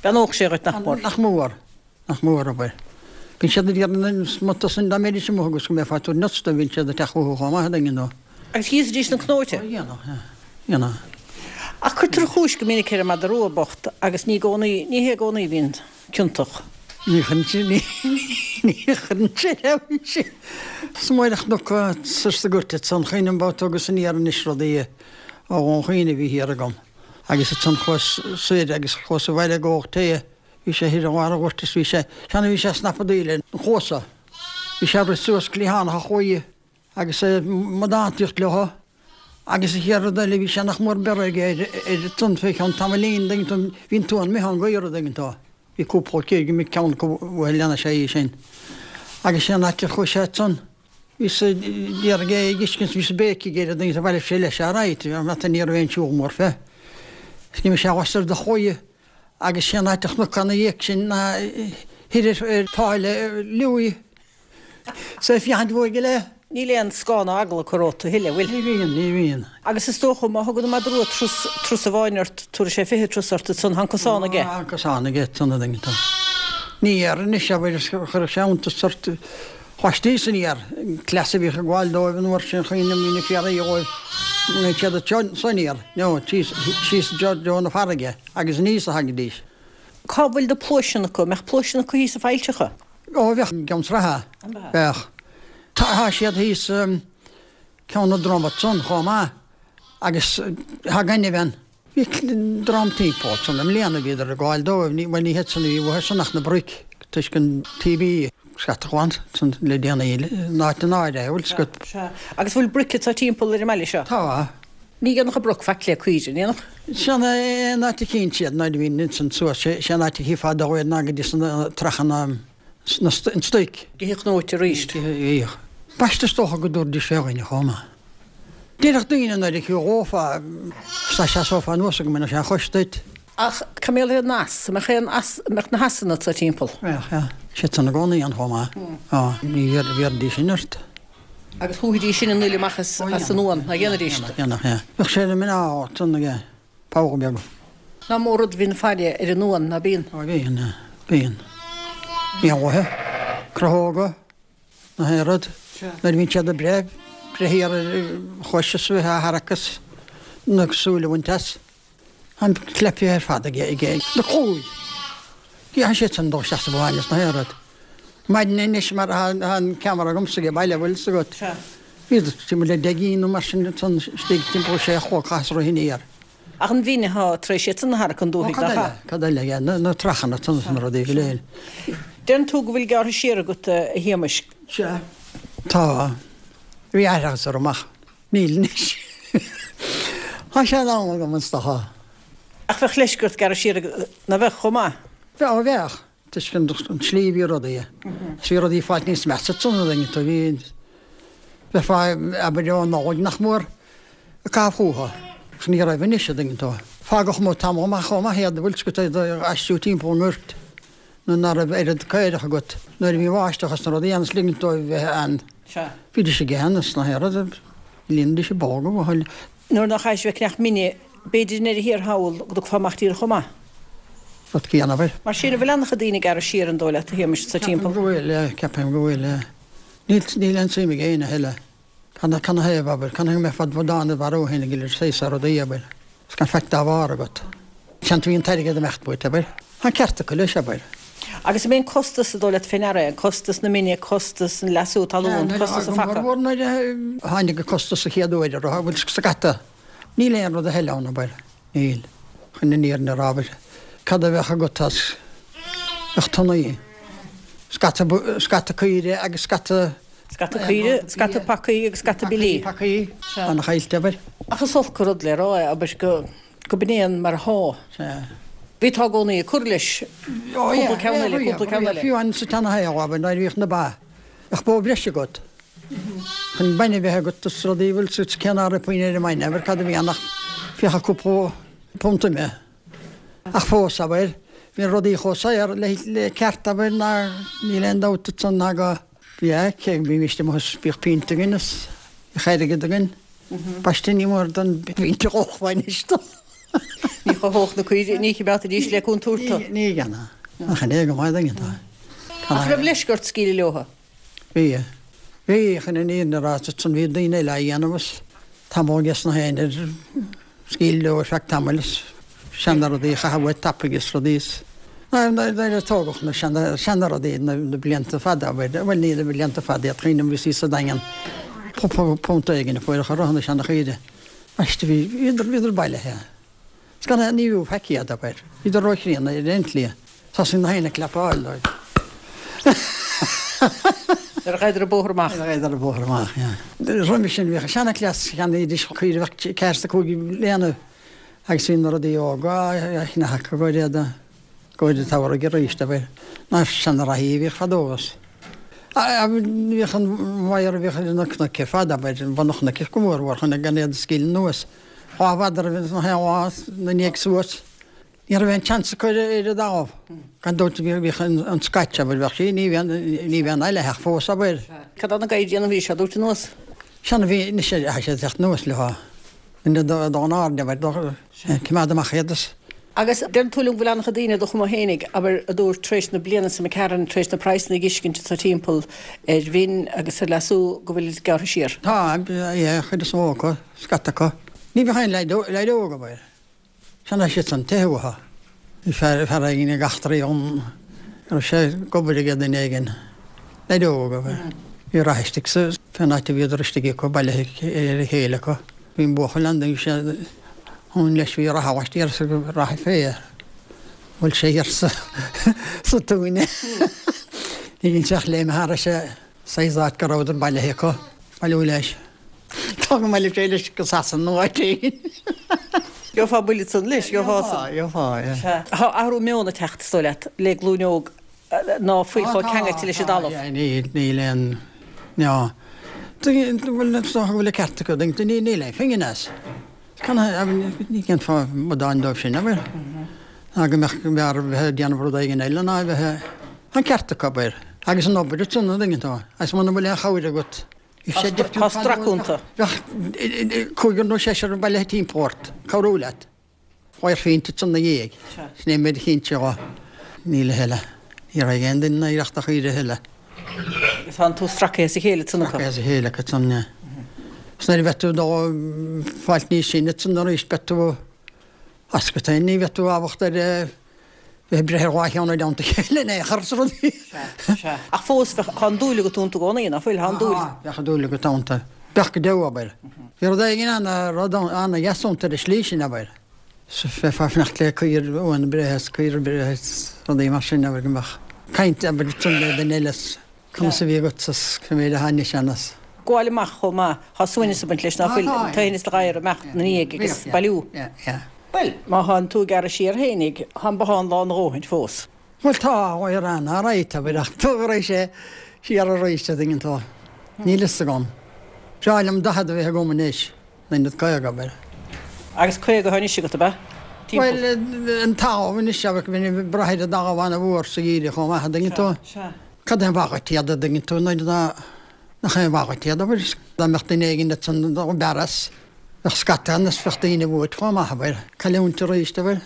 [SPEAKER 1] Beannódh sé dhuit nach mór.
[SPEAKER 5] Nach mór. Nach mór, abair. Bíonn siad ag iarraidh na smutha san dá mbeidís amuigh agus go mbeifeá ag tabhairt nuts dóibh, bíonn siad ag teacht chucu chomh maith, a dtuigeann tú.
[SPEAKER 1] Agus íosfaidís na cnóite.
[SPEAKER 5] Ó, dhéanadh, yeah. Dhéanadh.
[SPEAKER 1] Ach cuirtear an chúis go minic ar an madra rua bocht agus ní i gcónaí, ní hé i gcónaí a bhíonn ciontach.
[SPEAKER 5] Ní chuireann sé, ní, ní chuireann sé leis sin. Is mór an chnoc soir sa gcúirt ansan, chuimhním babhta agus aniar anois rudaí ó Dhún Chaoin a bhí thiar agam agus ansan chuas soir agus chuas abhaile ag ól tae Bhí sé thiar i lár an ghoirt is bhí sé, seana bhí sé ag snapadaíl ar an chluasa. Bhí sé ag rith suas cliathánach a chlaí agus é ag amadántaíocht leo agus an chéad rud eile bhí sé nach mór beirthe aige ar ar an tonn fé cheann tamaillín an dtuigeann tú, bhí an t-uan imithe ón gcaora an dtuigeann tú. Bhí cúpla céir go mbí ceann acu uaidh lean sé í sin. Agus sé an áit ar chuaigh sé ansan, bhíos ag iarraidh é a fheiscint, bhíos ag béicigh air an dtuigeann tú, bhailigh sé leis alright, ní raibh aon siúl mór fé. Is d'imigh sé lastoir de chlaí. Agus sé an áit a chnoc ina dhiaidh sin ná. Thoir ar Pháil Louis. 'S é féachaint uaidh go leith.
[SPEAKER 1] Níl aon scáth ná eagla acu romhat a thuilleadh, bhfuil?
[SPEAKER 5] Ní bhíonn, ní bhíonn.
[SPEAKER 1] Agus is dócha, má thugann an madra rua turas, turas amháin ort, tabharfaidh sé 20 turas ort ansan, tá an cosán aige.
[SPEAKER 5] Tá an cosán aige ansan a dhuine, tá. Ní dhéarfainn anois, abair, chuirfeadh sé iontas ort, bhaistí san iar, an cleas a bhíodh ag gabháil dóibh an uair sin, chuimhním, bhí na fiarraí dhóibh, bhí siad ansan iar, no, síos, síos i dtreo na farraige, agus aníos a thagaidís.
[SPEAKER 1] Cá bhfuil na pluaiseanna acu? An mbeadh pluaiseanna acu thíos i bhfaillteacha?
[SPEAKER 5] Ó bheadh i gCeann Sraithe, bheadh. Tá siad thíos Ceann na Droma ansan chomh maith agus tá gaineamh ann. Bhí dream timpeall ansan i mbliana, bhíodar ag gabháil dóibh, ní, bhuel ní hiad san a bhí uathu san ach na broic toisc an TB scata glan san le déanaí in áit an áirithe, bhfuil 's agat.
[SPEAKER 1] Sea. Agus bhfuil broic anseo timpeall ar an mbaile seo?
[SPEAKER 5] Tá.
[SPEAKER 1] Ní dhéanfadh an broc faic le caoire, an ndéanfadh?
[SPEAKER 5] Sin é an áit a chíonn siad nuair a bhíonn ansan suas, sé an áit a chífeá dóibh iad ná go dtí sna trachanna, an stoic.
[SPEAKER 1] Go dtí cnóite arís.
[SPEAKER 5] Bhíodh. B'aisteach is dócha go dtabharfaidís fé dhuine chomh maith. Déarfadh daoine nuair a chífeá, dá seasófá anuas go mbainfeadh sé an chois duit.
[SPEAKER 1] Ach cá mbeadh an eas? An mbeadh aon eas, an mbeadh na heasanna anseo timpeall?
[SPEAKER 5] Bheadh, yeah. Siad san i gcónaí ann chomh maith. Á, ní bhéarfaidís sin ort.
[SPEAKER 1] Agus shúfaidís sin an fhuil amach as an uan, nach ndéanfaidís?
[SPEAKER 5] Dhéanfadh, yeah. Bheadh sé na mná ansan aige, pogha beag.
[SPEAKER 1] Nach mór rud a bhíonn ag faire ar an uan, ná bíonn?
[SPEAKER 5] Á bíonn, yeah. Bíonn. Éanlaithe, crothóga, na haon rud. Nuair a bhíonn siad ag breith, breith thiar ar chois is bheith á tharrac is na súile a bhaint as. An cleipthe ar fad aige aige na cúil. Tá siad san dul isteach sa bhaile is na haon rud. Maidin anois mar tá an ceamara agamsa age baile bhfuil 's agat. Bhíodar timpeall le 10 gcinn nó mar sin ansan istigh timpeall sé a chlog chaitheas rith aniar.
[SPEAKER 1] Ach an mhin atá tar éis iad san a tharrac chun dúthaigh
[SPEAKER 5] nach ea? Cad eile aige? Na trachanna ansan is na rudaí go léir.
[SPEAKER 1] Deireann tú go bhfuil gearrtha siar agat a Shéamais.
[SPEAKER 5] Sea. Tá. Bhí aithreachas orm ach. Níl anois. Tá sé in am agam is dócha.
[SPEAKER 1] Ach bheadh leisce ort gearradh siar ná bheadh, chomh maith?
[SPEAKER 5] Bheadh, ó bheadh, toisc an tslí a bhí rudaí. Is bhí rudaí ag fáilt níos measa ansan a dtuigeann tú, bhí, bheifeá, abair, ó Nollaig nach mór ag caitheamh fúthu. Ach ní raibh anois a dtuigeann tú. Fágadh amuigh tamall maith chomh maith iad, bhfuil 's agat, iad a aistriú timpeall an ghoirt nuair ná raibh oiread caorach agat, nuair a bhí an bháisteach is na rudaí ann is ligint dóibh bheith ann.
[SPEAKER 1] Sea.
[SPEAKER 5] Bhídís ag ithe is na haon rud, líonaidís a bpolga, bhuel.
[SPEAKER 1] Nuair nach chaithfidís bheith ag ceannach mine, b'fhéidir i ndeireadh thiar thall go dtugfá amach díreach chomh maith.
[SPEAKER 5] Rud céanna, abair.
[SPEAKER 1] Mar sin, an bhfuil an-chuid daoine ag gearradh siar an dóigh leat, a Shéamais, sa
[SPEAKER 5] timpeall? Ceapaim go bhfuil, yeah, ceapaim go bhfuil, yeah. Níl, níl aon tsuim ag éinne a thuilleadh. Canathaobh, abair, canathaobh go mbeifeá id bhodán id mharú féin ag iarraidh saghas rudaí, abair, is gan faic dá bharr agat. Seans bhí an t-airgead ag imeacht uait, abair. Tá an ceart acu leis, abair.
[SPEAKER 1] Agus an mbíonn costas, an dóigh leat fé ndeara é, an costas na mine, costas an leasú talún, costas an phaca?
[SPEAKER 5] Go mór mhór nuair a tháinig an costas an chéad uair a raibh, bhfuil scata. Níl aon rud a thuilleadh ann, abair. Níl. Chun an fhírinne a rá, abair. Cad a bheadh agat as, bheadh tonnaí, scata, scata caoire agus
[SPEAKER 1] scata. Scata caoire, scata pacaí agus scata billí.
[SPEAKER 5] Pacaí,
[SPEAKER 1] Sea.
[SPEAKER 5] Ana-chaillte, abair.
[SPEAKER 1] Ach is olc an rud le rá é, abair, go, go b'in é an mar athá.
[SPEAKER 5] Sea.
[SPEAKER 1] Bhí tá i gcónaí ag cur leis.
[SPEAKER 5] Ó,
[SPEAKER 1] yeah. Cúpla ceann eile, cúpla ceann eile.
[SPEAKER 5] Fiú amháin sa tseana-shaol, abair, nuair a bhíodh na ba, bheadh bó bhreise agat. Chun bainne a bheith agat is rudaí, bhfuil 's agat cé ná raibh puinn ar an mbainne, abair, cad a bhí ann ach fiacha cúpla punt ime. Ach fós, abair, bhí rudaí chomh saor le, le ceart, abair, ná níl aon dabht ansan ná go, yeah, cé go mbímíst amuigh is bhíodh pínt againn is bhíodh airgead againn. Baiste ní mór don bpínt a dh'ólfá anois do.
[SPEAKER 1] Ní chothódh na caoirigh, ní choimeádfaidís le contúirt
[SPEAKER 5] tú. Ní dhéanfadh. Ach an é go maith duine atá.
[SPEAKER 1] Ach raibh leisce ort scaoileadh leotha?
[SPEAKER 5] Bhí. Bhí, chun an fhírinne a rá, ansan bhí daoine eile á dhéanamh is tamall ages na héinne ar scaoileadh leo ar feadh tamaill is seana rudaí a chaitheamh uait tapaidh is rudaí is nuair a tógadh na seana seana rudaí na blianta fada abair, bhuel ní na blianta fada iad cuimhním bhí sí sa Daingean cúpla punt éigin a fuair a chur orthu na seana chaoire. Baiste bhí bhíodar bhíodar bailithe. Is gan aon ní bhfiú faic iad, abair. Bhíodar róchríonna ar aon tslí. Thosaigh na héin ag cleapáil dóibh.
[SPEAKER 1] Nuair a ghabhadar an bóthar amach.
[SPEAKER 5] Nuair a ghabhadar an bóthar amach, yeah. Roimhe sin bhíodh seana-chleas, cheannaídís caoire a bheadh ceathair is a cúig bliana agus bhí na rudaí óga á cheannach acu go dtí go dtí an tsamhraidh arís, abair. Na seana-reathaí a bhíodh fadó is. Bhíodh an wire a bhíodh ar na cnoic ar fad, abair, bun an chnoic go mór mhór chun gan iad a scaoileadh anuas. Dhá mhadra a bhí ins na haon lá 'na ndiaidh suas. Ní raibh aon tseans acu ar an dtalamh. Gan dabht bhíodh an scait, abair, bheadh sí, ní bheadh, ní bheadh an aile fós, abair.
[SPEAKER 1] Cad é na gadhair a bhí sé ag tabhairt anuas?
[SPEAKER 5] Sea, bhí, anois tá sé ag teacht anuas leo. Duine dá n-airde, abair, coimeád amach iad is.
[SPEAKER 1] Agus deireann tú liom go bhfuil an-chuid daoine do chuma fhéinig, abair, a dúirt tar éis na bliana seo imigh tharainn, tar éis na praghsanna a dh'fheiscint anso timpeall ar mhin agus ar leasú, go bhfuil gearrtha siar.
[SPEAKER 5] Tá, yeah, an chuid is mó acu, scata acu. Ní bheadh aon leaid óg, abair. Sea, tá siad san teitheadh uathu. Bhí fear fear éigin ag eachtraí dhom go raibh sé ag obair ag duine éigin, leaid óg ab ea. Bhí rath istigh sa fén áit a bhíodar istigh acu, bailithe ar a chéile acu. Bhí an buachaill ann, bhí sé ann leis, bhí rath laistiar sa rath fé air. Bhuail sé thiar sa sa túine. Ní bhíonn sé ach léim thairis saghas áit go rabhadar bailithe acu, bailiú leis. Tá go maith le sé leis go Sasana nó áit éigin.
[SPEAKER 1] Gheofá buille ansan leis, gheofá san.
[SPEAKER 5] Gheofá, gheofá, yeah.
[SPEAKER 1] Tá athrú meoin ag teacht, is dóigh leat, le glúin óg ná fuil chomh ceangailte leis an dtalamh.
[SPEAKER 5] Tá, níl, níl aon, ná, bhuel, is dócha go bhfuil an ceart acu, níl aon phingin as. Ní dhéanfá amadáin dóibh sin, abair. Ná go mbeadh, go mb'fhearr a bheith ag déanamh rud éigin eile ná a bheith, tá an ceart acu, abair. Agus an obair ansan, an dtuigeann tú, agus muna bhfuil aon chabhair agat,
[SPEAKER 1] Tá strac iontu.
[SPEAKER 5] Bheadh cúigear nó seisear bailithe timpeall ort, cabhrú leat. Fuair phionta ansan 'na dhiaidh. Sin é an méid a chinnte dho. Níl a thuilleadh. Ní raibh aon duine in oidhreacht a chaoire a thuilleadh.
[SPEAKER 1] Agus tá an tú stracaithe as a chéile ansan acu.
[SPEAKER 5] Stracaithe as a chéile acu ansan, yeah. Is nuair a bheidh tú dó fáilt níos sine ansan arís beidh tú as agat féin. Ní bheidh tú ábalta ar bheith ag breith ar dhá cheann i dteannta a chéile in aon chor is rudaí.
[SPEAKER 1] Sea, sea. Ach fós, bheadh, tá an dúil agat iontu i gcónaí, ná fuil? Tá an dúil.
[SPEAKER 5] Tá, bheadh an dúil agat iontu. Bheadh go deo, abair. Bhí rud éigin ana, rud ana-dheas iontu ar an slí sin, abair. Bheifeá ag fanacht le caor uan a breith is caor a breith is rudaí mar sin, abair, go mbeadh caint, abair, ansan le duine eile is conas a bhí agat is cé mhéad a tháinig sé anas.
[SPEAKER 1] Gabháil amach chomh maith, tá suaimhneas ag baint leis, ná fuil? An t-aoibhneas le gadhar amach 'na ndiaidh agus bailiú.
[SPEAKER 5] Yeah, yeah.
[SPEAKER 1] Bhuel, má thánn tú ag gearradh siar fhéinig, tá an bothán lán a dhóthaint fós.
[SPEAKER 5] Bhuel, tá, ar an alright, abair, ach tabharfaidh sé siar arís, a dtuigeann tú. Níl fhios agam. Breá liom 40 a bheith agam anois, in ionad 50, abair.
[SPEAKER 1] Agus 50 atá anois agat, ab ea?
[SPEAKER 5] Timpeall. Bhuel, an talamh anois, abair, bheinn ag brath ar an dtalamh an-mhór sa gheimhreadh chomh maith, a dtuigeann tú.
[SPEAKER 1] Sea, sea.
[SPEAKER 5] Cad é an mhaith dhuit iad, a dtuigeann tú, nuair atá, nach aon mhaith dhuit iad, abair. Dá mbeadh duine éigin ansan dob fhearr as. Bheadh scata ann is bheadh daoine uait chomh maith, abair. Cailliúint arís, abair.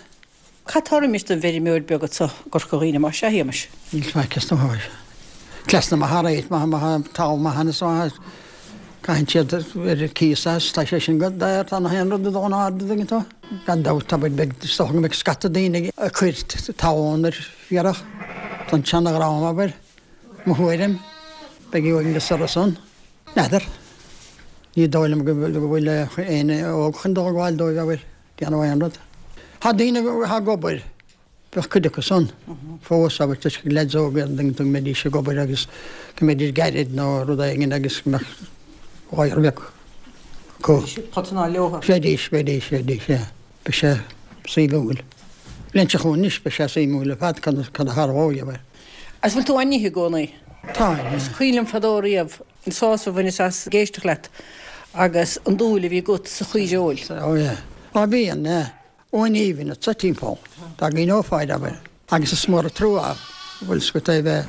[SPEAKER 1] Cad tá roimis don bhfeirmeoir beag anso i gCorca Dhuibhne, más ea, a Shéamais?
[SPEAKER 5] Níl faic is dóigh. Cleas na maith alright, má tá talamh maith ann is maith caitheann siad ar cíos as, tá sé sin go daor, tá na haon rud ag dul in airde, an dtuigeann tú. Gan dabht, abair, beidh, is dócha go mbeidh scata daoine ag cur talún ar fiarach don tseana-dhream, abair. Mo thuairim, beidh uaigneas orthu san. N'fheadar. Ní dóigh liom go bhfuil éinne óg chun dul ag gabháil dóibh, abair, déanamh aon rud. Tá daoine atá ag obair, bheadh cuid acu san fós, abair, toisc gur leaids óga iad, go mbeidís ag obair agus go mbeidís gairid nó rud éigin agus go mbeadh gadhar beag acu.
[SPEAKER 1] Bheidís ag potanáil leo.
[SPEAKER 5] Bheidís, bheidís, bheidís, yeah. Beidh sé suimiúil. Bliain seo chugainn anois, beidh sé suimiúil ar fad cad a tharlóidh, abair.
[SPEAKER 1] Agus bhfuil tú á n-ithe i gcónaí?
[SPEAKER 5] Tá, yeah.
[SPEAKER 1] Is cuimhin liom fadó riamh an sásamh a bhaineas as ag éisteacht leat agus an dúil a bhí agat sa chaoireoil.
[SPEAKER 5] Oh yeah. Á bíonn, yeah. Uain aoibhinn anso timpeall. Dá gcuimhneofá air, abair. Agus is mór an trua bhfuil 's agat é bheith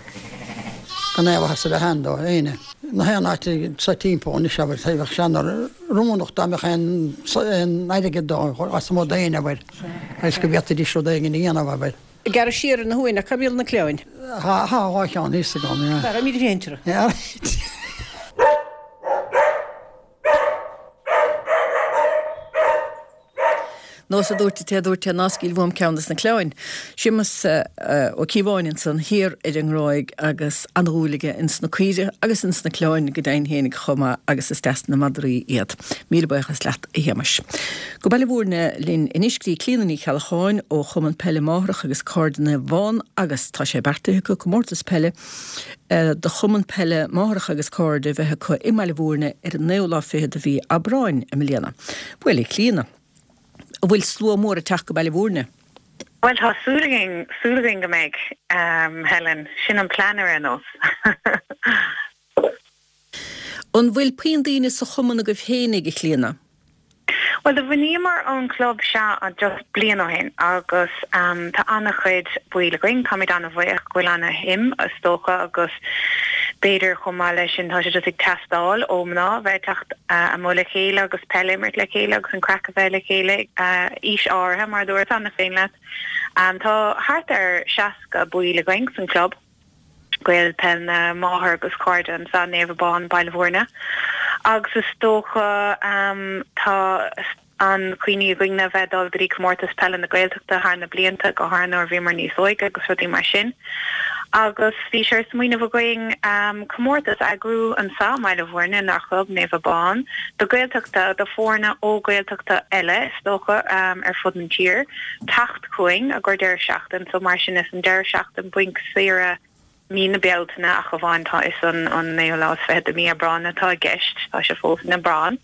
[SPEAKER 5] gan aon mhaitheas a bheith ann do éinne. Na haon áit anso timpeall anois, abair, bheadh sé an-oiriúnach dá mbeadh aon aon airgead dó as amuigh d'éinne, abair, agus go bhféadfaidís rud éigin a dhéanamh, abair.
[SPEAKER 1] Ag gearradh siar ar na huain, ach cá mbíonn na cliabhain?
[SPEAKER 5] Tá dhá cheann thíos agam, yeah.
[SPEAKER 1] Tá, raibh míle féin orthu.
[SPEAKER 5] Yeah.
[SPEAKER 1] Nós a dúirt an té a dúirt é ná scaoil uaim ceann des na cliabhain. Séamus Ó Cíobháin ansan thiar ar an nGráig agus an-dhúil aige ins na caoirigh agus ins na cliabhain go deimhin fhéinig chomh maith agus is deas na madraí iad. Míle buíochas leat a Shéamais. Go Baile Mhúirne linn anois go dtí Clíona Ní Cheallacháin ó Chumann Peile Máthrach agus Cairde Naomh Abán agus tá sé beartaithe acu comórtas peile do Chumann Peile Máthrach agus Cairde a bheith acu i mBaile Mhúirne ar an naoú lá fichead de mhí Aibreáin i mbliana. Bhuel, a Chlíona, an bhfuil slua mór ag teacht go Baile Mhúirne?
[SPEAKER 6] Bhuel, tá súil againn, súil againn go mbeidh, Helen. Sin an plean ar aon nós.
[SPEAKER 1] An bhfuil puinn daoine sa chumann agaibh fhéinig, a Chlíona?
[SPEAKER 6] Bhuel, do bhunaíomar an club seo just bliain ó shin agus tá an-chuid baill againn. Táimid an-bhuíoch go bhfuil an-shuim, is dócha, agus b'fhéidir chomh maith leis sin tá sé just ag teastáil ó mná a bheith ag teacht amuigh le chéile agus peil a imirt le chéile agus an craic a bheith le chéile ag aois áirithe, mar a dúirt cheana féin leat. Tá thart ar 60 baill againn san club. Gaeil Peil na Máthar agus Cairde anseo, Naomh Abán, Baile Bhúirne. Agus is dócha tá an chuimhne againn a bheith ag dul go dtí comórtas peile na Gaeltachta thar na blianta, go háirithe nuair a bhíomar níos óige agus rudaí mar sin. Agus bhí sé ar smaoineamh againn comórtas a eagrú anseo i mBaile Bhúirne, inár chlub, Naomh Abán, do Gaeltachta, do foirne ó Gaeltachta eile is dócha ar fud an tír, teacht chugainn i gcomhair deireadh seachtain so mar sin is an deireadh seachtain bainc saoire mí na Bealtaine ach amháin tá is an an naoú lá is fichead de mí Aibreán atá i gceist tá sé fós in Aibreán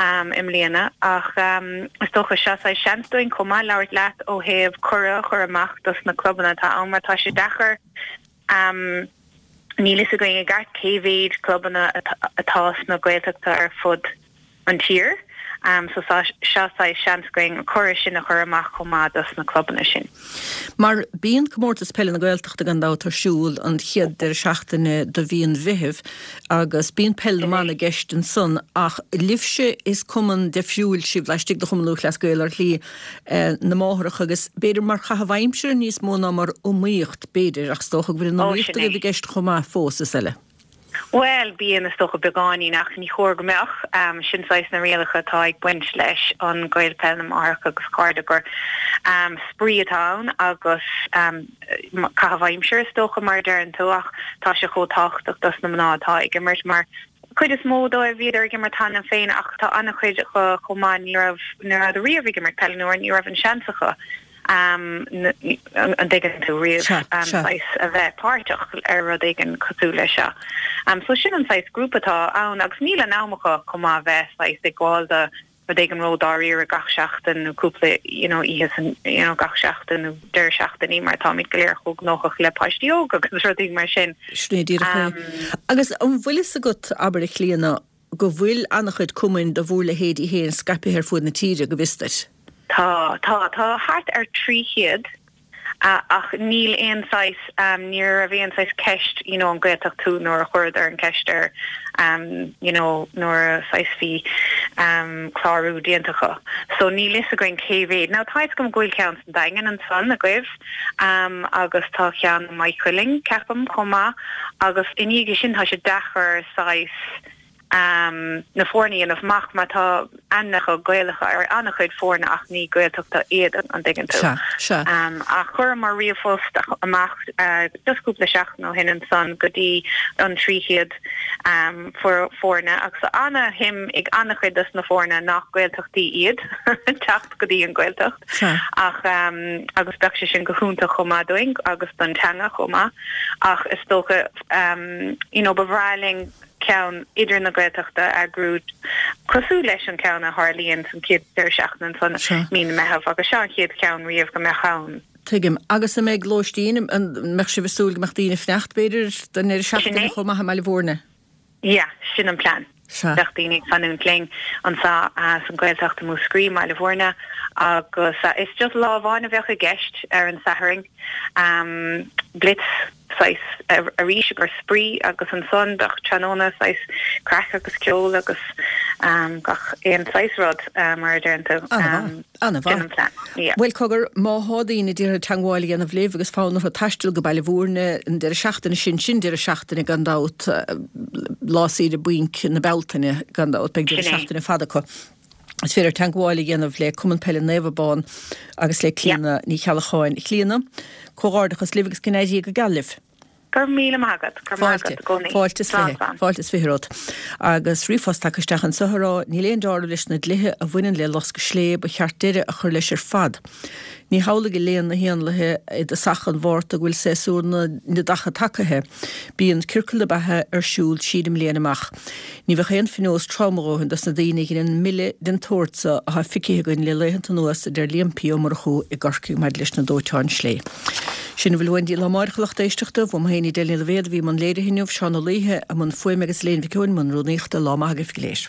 [SPEAKER 6] i mbliana ach is dócha seo saghas seans dúinn chomh maith labhairt leat ó thaobh cuireadh a chur amach dos na clubanna atá ann mar tá sé deacair níl fhios againn i gceart cé mhéid clubanna atá sna Gaeltachta ar fud an tír. So seo saghas seans againn an cuireadh sin a chur amach chomh maith dos na clubanna sin.
[SPEAKER 1] Mar bíonn Comórtas Peile na Gaeltachta gan dabht ar siúl an chéad deireadh seachtaine de mhí an Mheithimh agus bíonn Peil na mBan i gceist ansan ach libhse is cumann deifriúil sibh laistigh de Chumann Lúthchleas Gael ar shlí na máithreacha agus b'fhéidir mar chaitheamh aimsire níos mó ná mar iomaíocht b'fhéidir ach is dócha go bhfuil an iomaíocht agaibh i gceist chomh maith fós is eile.
[SPEAKER 6] Bhuel, bíonn, is dócha, beagáinín, ach ní chóir go mbeadh. Sin saghas na rialacha atá ag baint leis an Gael Peil na Máithreacha agus Cairde, gur spraoi atá ann agus caitheamh aimsire, is dócha, mar a deireann tú, ach tá sé chomh tábhachtach dos na mná atá ag imirt mar cuid is mó dóibh bhíodar ag imirt cheana féin ach tá an-chuid acu chomh maith ní raibh, ní rabhadar riamh ag imirt peile nó ní raibh an seans acu. an dtuigeann tú, riamh saghas a bheith páirteach ar rud éigin cosúil leis seo. So sin an saghas grúpa atá ann agus níl an am acu chomh maith bheith saghas ag gabháil do rud éigin ró-dáiríre gach seachtain nó cúpla you know oíche san you know gach seachtain nó deireadh seachtainí mar táimid go léir chomh gnóthach le páistí óga agus rudaí mar sin.
[SPEAKER 1] Sin é díreach é. Agus an bhfuil fhios agat, abair a Chlíona, go bhfuil an-chuid cumainn de bhúr leithéidí féin scaipthe ar fuaid na tíre, go bhfios duit.
[SPEAKER 6] Tá, tá. Tá thart ar 300 ach níl aon saghas, ní raibh aon saghas ceist you know an Gaeltacht thú nuair a chuireadar an ceist ar you know nuair a saghas bhí clárú déanta acu. So níl fhios againn cé mhéad. Now tá fhios agam go bhfuil ceann san Daingean ansan agaibh agus tá ceann i Maigh Cuilinn ceapaim chomh maith agus i ndiaidh sin tá sé deacair saghas na foirne a dhéanamh amach mar tá ainmneacha Gaelacha ar an-chuid foirne ach ní Gaeltachta iad, an dtuigeann tú.
[SPEAKER 1] Sea, sea.
[SPEAKER 6] Ach chuireamar ríomhphost amach just cúpla seachtain ó shin ansan go dtí an 300 foirne agus tá ana-shuim ag an-chuid dos na foirne nach Gaeltachtaí iad teacht go dtí an Ghaeltacht.
[SPEAKER 1] Sea.
[SPEAKER 6] Ach agus bheadh sé sin go hiontach chomh maith dúinn agus don teanga chomh maith ach is dócha you know ba bhreá linn ceann idir na Gaeltachta a eagrú cosúil leis an ceann a tharlaíonn san chéad deireadh seachtaine ansan mí na Meitheamh agus seo an chéad cheann riamh go mbeadh ann.
[SPEAKER 1] Tuigim. Agus an mbeidh lóistín, an mbeadh sibh ag súil go mbeadh daoine ag fanacht b'fhéidir don ndeireadh seachtaine chomh maith i mBaile Bhúirne?
[SPEAKER 6] Yeah, sin an plean.
[SPEAKER 1] Sea.
[SPEAKER 6] Bheadh daoine ag fanúint linn anso san Ghaeltacht i Múscraí, i mBaile Bhúirne agus is just lá amháin a bheadh i gceist ar an Satharn. Blitz saghas arís i gcomhair spraoi agus ansan bheadh tráthnóna saghas craic agus ceol agus gach aon saghas rud mar a deireann tú.
[SPEAKER 1] Ana-mhaith. Ana-mhaith.
[SPEAKER 6] Sin an plean. Yeah.
[SPEAKER 1] Bhuel cogar, má thá daoine ag iarraidh teangmháil a dhéanamh libh agus fonn orthu taisteal go Baile Bhúirne an deireadh seachtaine sin, sin deireadh seachtaine gan dabht, lá saoire bainc na Bealtaine gan dabht, beidh deireadh
[SPEAKER 6] Sin é.
[SPEAKER 1] seachtaine fada acu. Is féidir teangmháil a dhéanamh le Cumann Peile Naomh Abán agus le Clíona Ní Cheallacháin. A Chlíona, comhghairdeachas libh agus go n-éirí Dia go geal libh.
[SPEAKER 6] Go raibh míle maith agat. Go raibh maith
[SPEAKER 1] Fáilte.
[SPEAKER 6] agat i gcónaí.
[SPEAKER 1] Fáilte is
[SPEAKER 6] Slán,
[SPEAKER 1] 20.
[SPEAKER 6] slán.
[SPEAKER 1] Fáilte is 20 romhat. Agus ríomhphost tagtha isteach anseo ag rá, Níl aon dealramh leis na dlíthe a bhaineann le loscadh slé, ba cheart deireadh a chur leis ar fad. Ní hamhlaidh a léann na héanlaithe i dtosach an Mhárta go bhfuil séasúr na neadacha tagaithe. Bíonn ciorcal na beatha ar siúl tríd an mbliain amach. Ní bheadh aon phionós trom a dhóthain dos na daoine a dheineann milleadh den tsórt so athá ficithe againn le laethanta anuas, a deir Liam P. Ó Murchú i gCorcaigh maidir leis na dóiteáin slé. Sin a bhfuil uainn daoibh lá amáireach a lucht éisteachta. Uaim féin Edel Ní Loibhéad a bhí i mbun léirithe inniu, Seán Ó Laoithe i mbun fuaime agus Elaine Mhic Eoin i mbun rúnaíochta. Lá maith agaibh go léir.